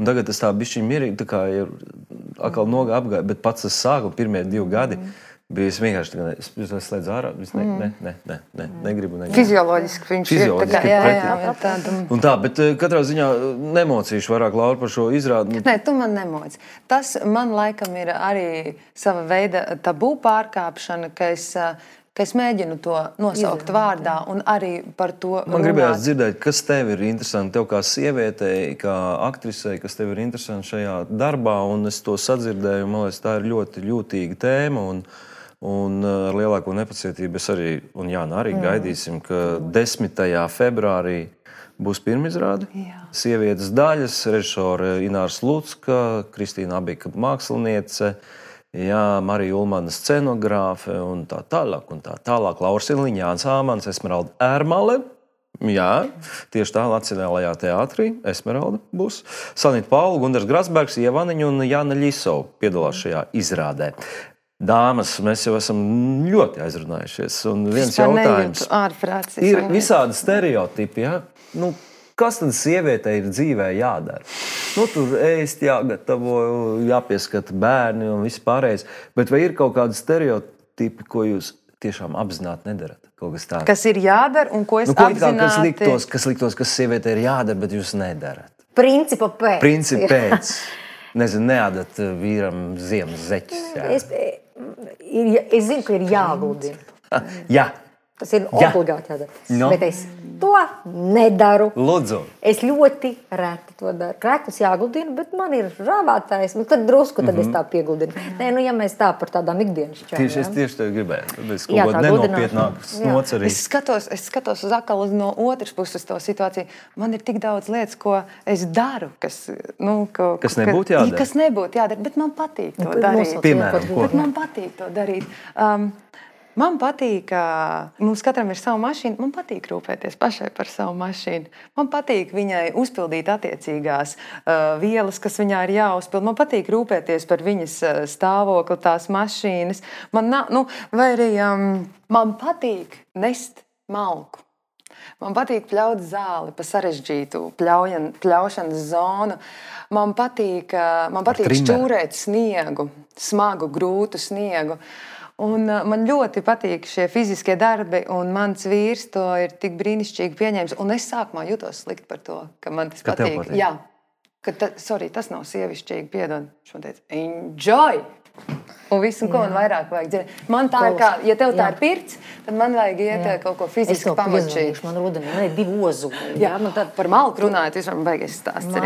Un tagad tas tā bišķiņ mierīgi, tā kā ir atkal nogā apgāja, bet pats tas sākuma pirmie 2 gadi bija es vienkārši tagad, es slēdzu ārā, negribu. Fizioloģiski viņš ir tā kā, jā, tāda. Un tā, bet katrā ziņā nemocīšu vairāk, Laura, par šo izrādi. Nē, tu man nemoci. Tas man laikam ir arī sava veida tabū pārkāpšana, ka es mēģinu to nosaukt vārdā un arī par to runāt. Man gribējās dzirdēt, kas tev ir interesanti, tev kā sievietei, kā aktrisei, kas tev ir interesanti šajā darbā, un es to sadzirdēju, man liekas, tā ir ļoti jūtīga tēma, un ar lielāko nepacietību es arī, un Jāna arī gaidīsim, ka 10. februārī būs pirmizrāde. Sievietes daļas, režisore Ināra Slucka, Kristīna Abika māksliniece, jā, Marija Ulmana scenogrāfe un tā tālāk. Laura Siliņa, Jānis Āmans, Esmeralda Ērmale. Jā, tieši tā Nacionālajā teātrī Esmeralda būs. Sanita Paula, Gundars Grasbergs, Ievaniņa un Jāna Ļisova piedalās šajā izrādē. Dāmas, mēs jau esam ļoti aizrunājušies. Un viens jautājums. Ir visādi stereotipi, jā? Nu, kas tad sievietei ir dzīvē jādara? Nu, tur ēst jāgatavo, jāpieskata bērni un viss pārējais. Bet vai ir kaut kādi stereotipi, ko jūs tiešām apzināti nedarat? Kaut kas tāds. Kas ir jādara un ko es apzināti... Kas liktos, kas sievietei ir jādara, bet jūs nedarat? Principa pēc. Nezinu, neādat vīram ziemas zeķis. Es zinu, ka ir jāgludina. Jā. Tas ir obligāti jādara. No. Bet es to nedaru. Lūdzu. Es ļoti reti to daru. Krēklus jāgludina, bet man ir rāvātājs. Nu, tad drusku tad es tā piegludinu. Nē, nu, ja mēs tā par tādām ikdienas čām. Es tieši tev gribēju. Tad es kaut ko nenopietnāku snots arī. Es skatos uz atkal no otras puses to situāciju. Man ir tik daudz lietas, ko es daru, kas nebūtu jādara. Kas nebūtu jādara, bet man patīk to darīt. Piemēram, ko? Bet man patīk to darīt. Man patīk, ka mums katram ir sava mašīna. Man patīk rūpēties pašai par savu mašīnu. Man patīk viņai uzpildīt attiecīgās vielas, kas viņā ir jāuzpild. Man patīk rūpēties par viņas stāvokli, tās mašīnas. Man patīk nest malku. Man patīk pļaut zāli pa sarežģītu pļaušanas zonu. Man patīk šķūrēt sniegu, smagu, grūtu sniegu. Un man ļoti patīk šie fiziskie darbi, un mans vīrs to ir tik brīnišķīgi pieņēmis. Un es sākumā jutos slikti par to, ka man tas patīk. Jā, tas nav sievišķīgi, piedod. Viņš man teica, enjoy! Un visu, ko man vairāk vajag dzirdēt. Man tā ir kā, ja tev tā ir pirts, tad man vajag iet kaut ko fiziski pamačīt. Man rudenī, 2 ozuli. Jā, man tad par malku runājot, vispār man baigies stāsts. Man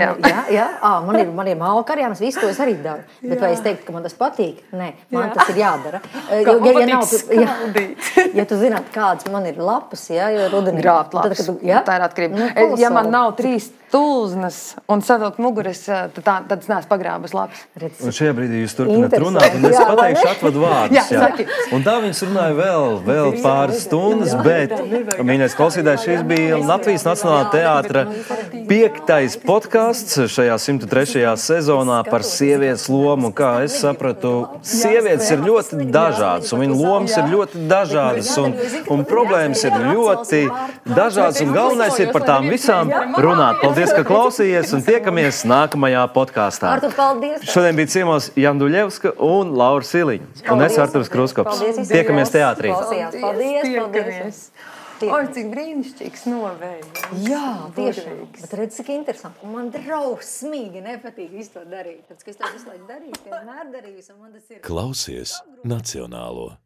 ir malka arī, un visu to es arī daru. Bet vai es teiktu, ka man tas patīk? Nē, man tas ir jādara. Ja tu zināt, kādas man ir lapas, jo rudenī... Grābt lapas, tā ir atkarība. Ja man nav 3 tulznas un savilkt muguras, tad es neesmu pagrābas lapas. Un šajā brīdī jūs turpināt runāt, un es pateikšu atvadu vārdus. Un tā viņas runāja vēl pāris stundas, bet, mīļais klausītājs, šis bija Latvijas Nacionālā teātra 5. podcasts šajā 103. sezonā par sievietes lomu. Kā es sapratu, sievietes ir ļoti dažādas, un viņu lomas ir ļoti dažādas, un problēmas ir ļoti dažādas, un galvenais ir par tām visām runāt. Paldies, ka klausījies, un tiekamies nākamajā podkāstā. Artur, paldies! Šodien bija ciemos Jāna Duļevska un Laura Siliņa. Un es, Arturs Krūskops. Tiekamies teātrī. Paldies! Oi, cik brīnišķīgs novējums. Jā, tiešām. Bet redz, cik interesanti. Un man drausmīgi nepatīk visu to darīt. Tāpēc, ka es to visu laiku darīju, vienmēr darīju. Klausies Nacionālo.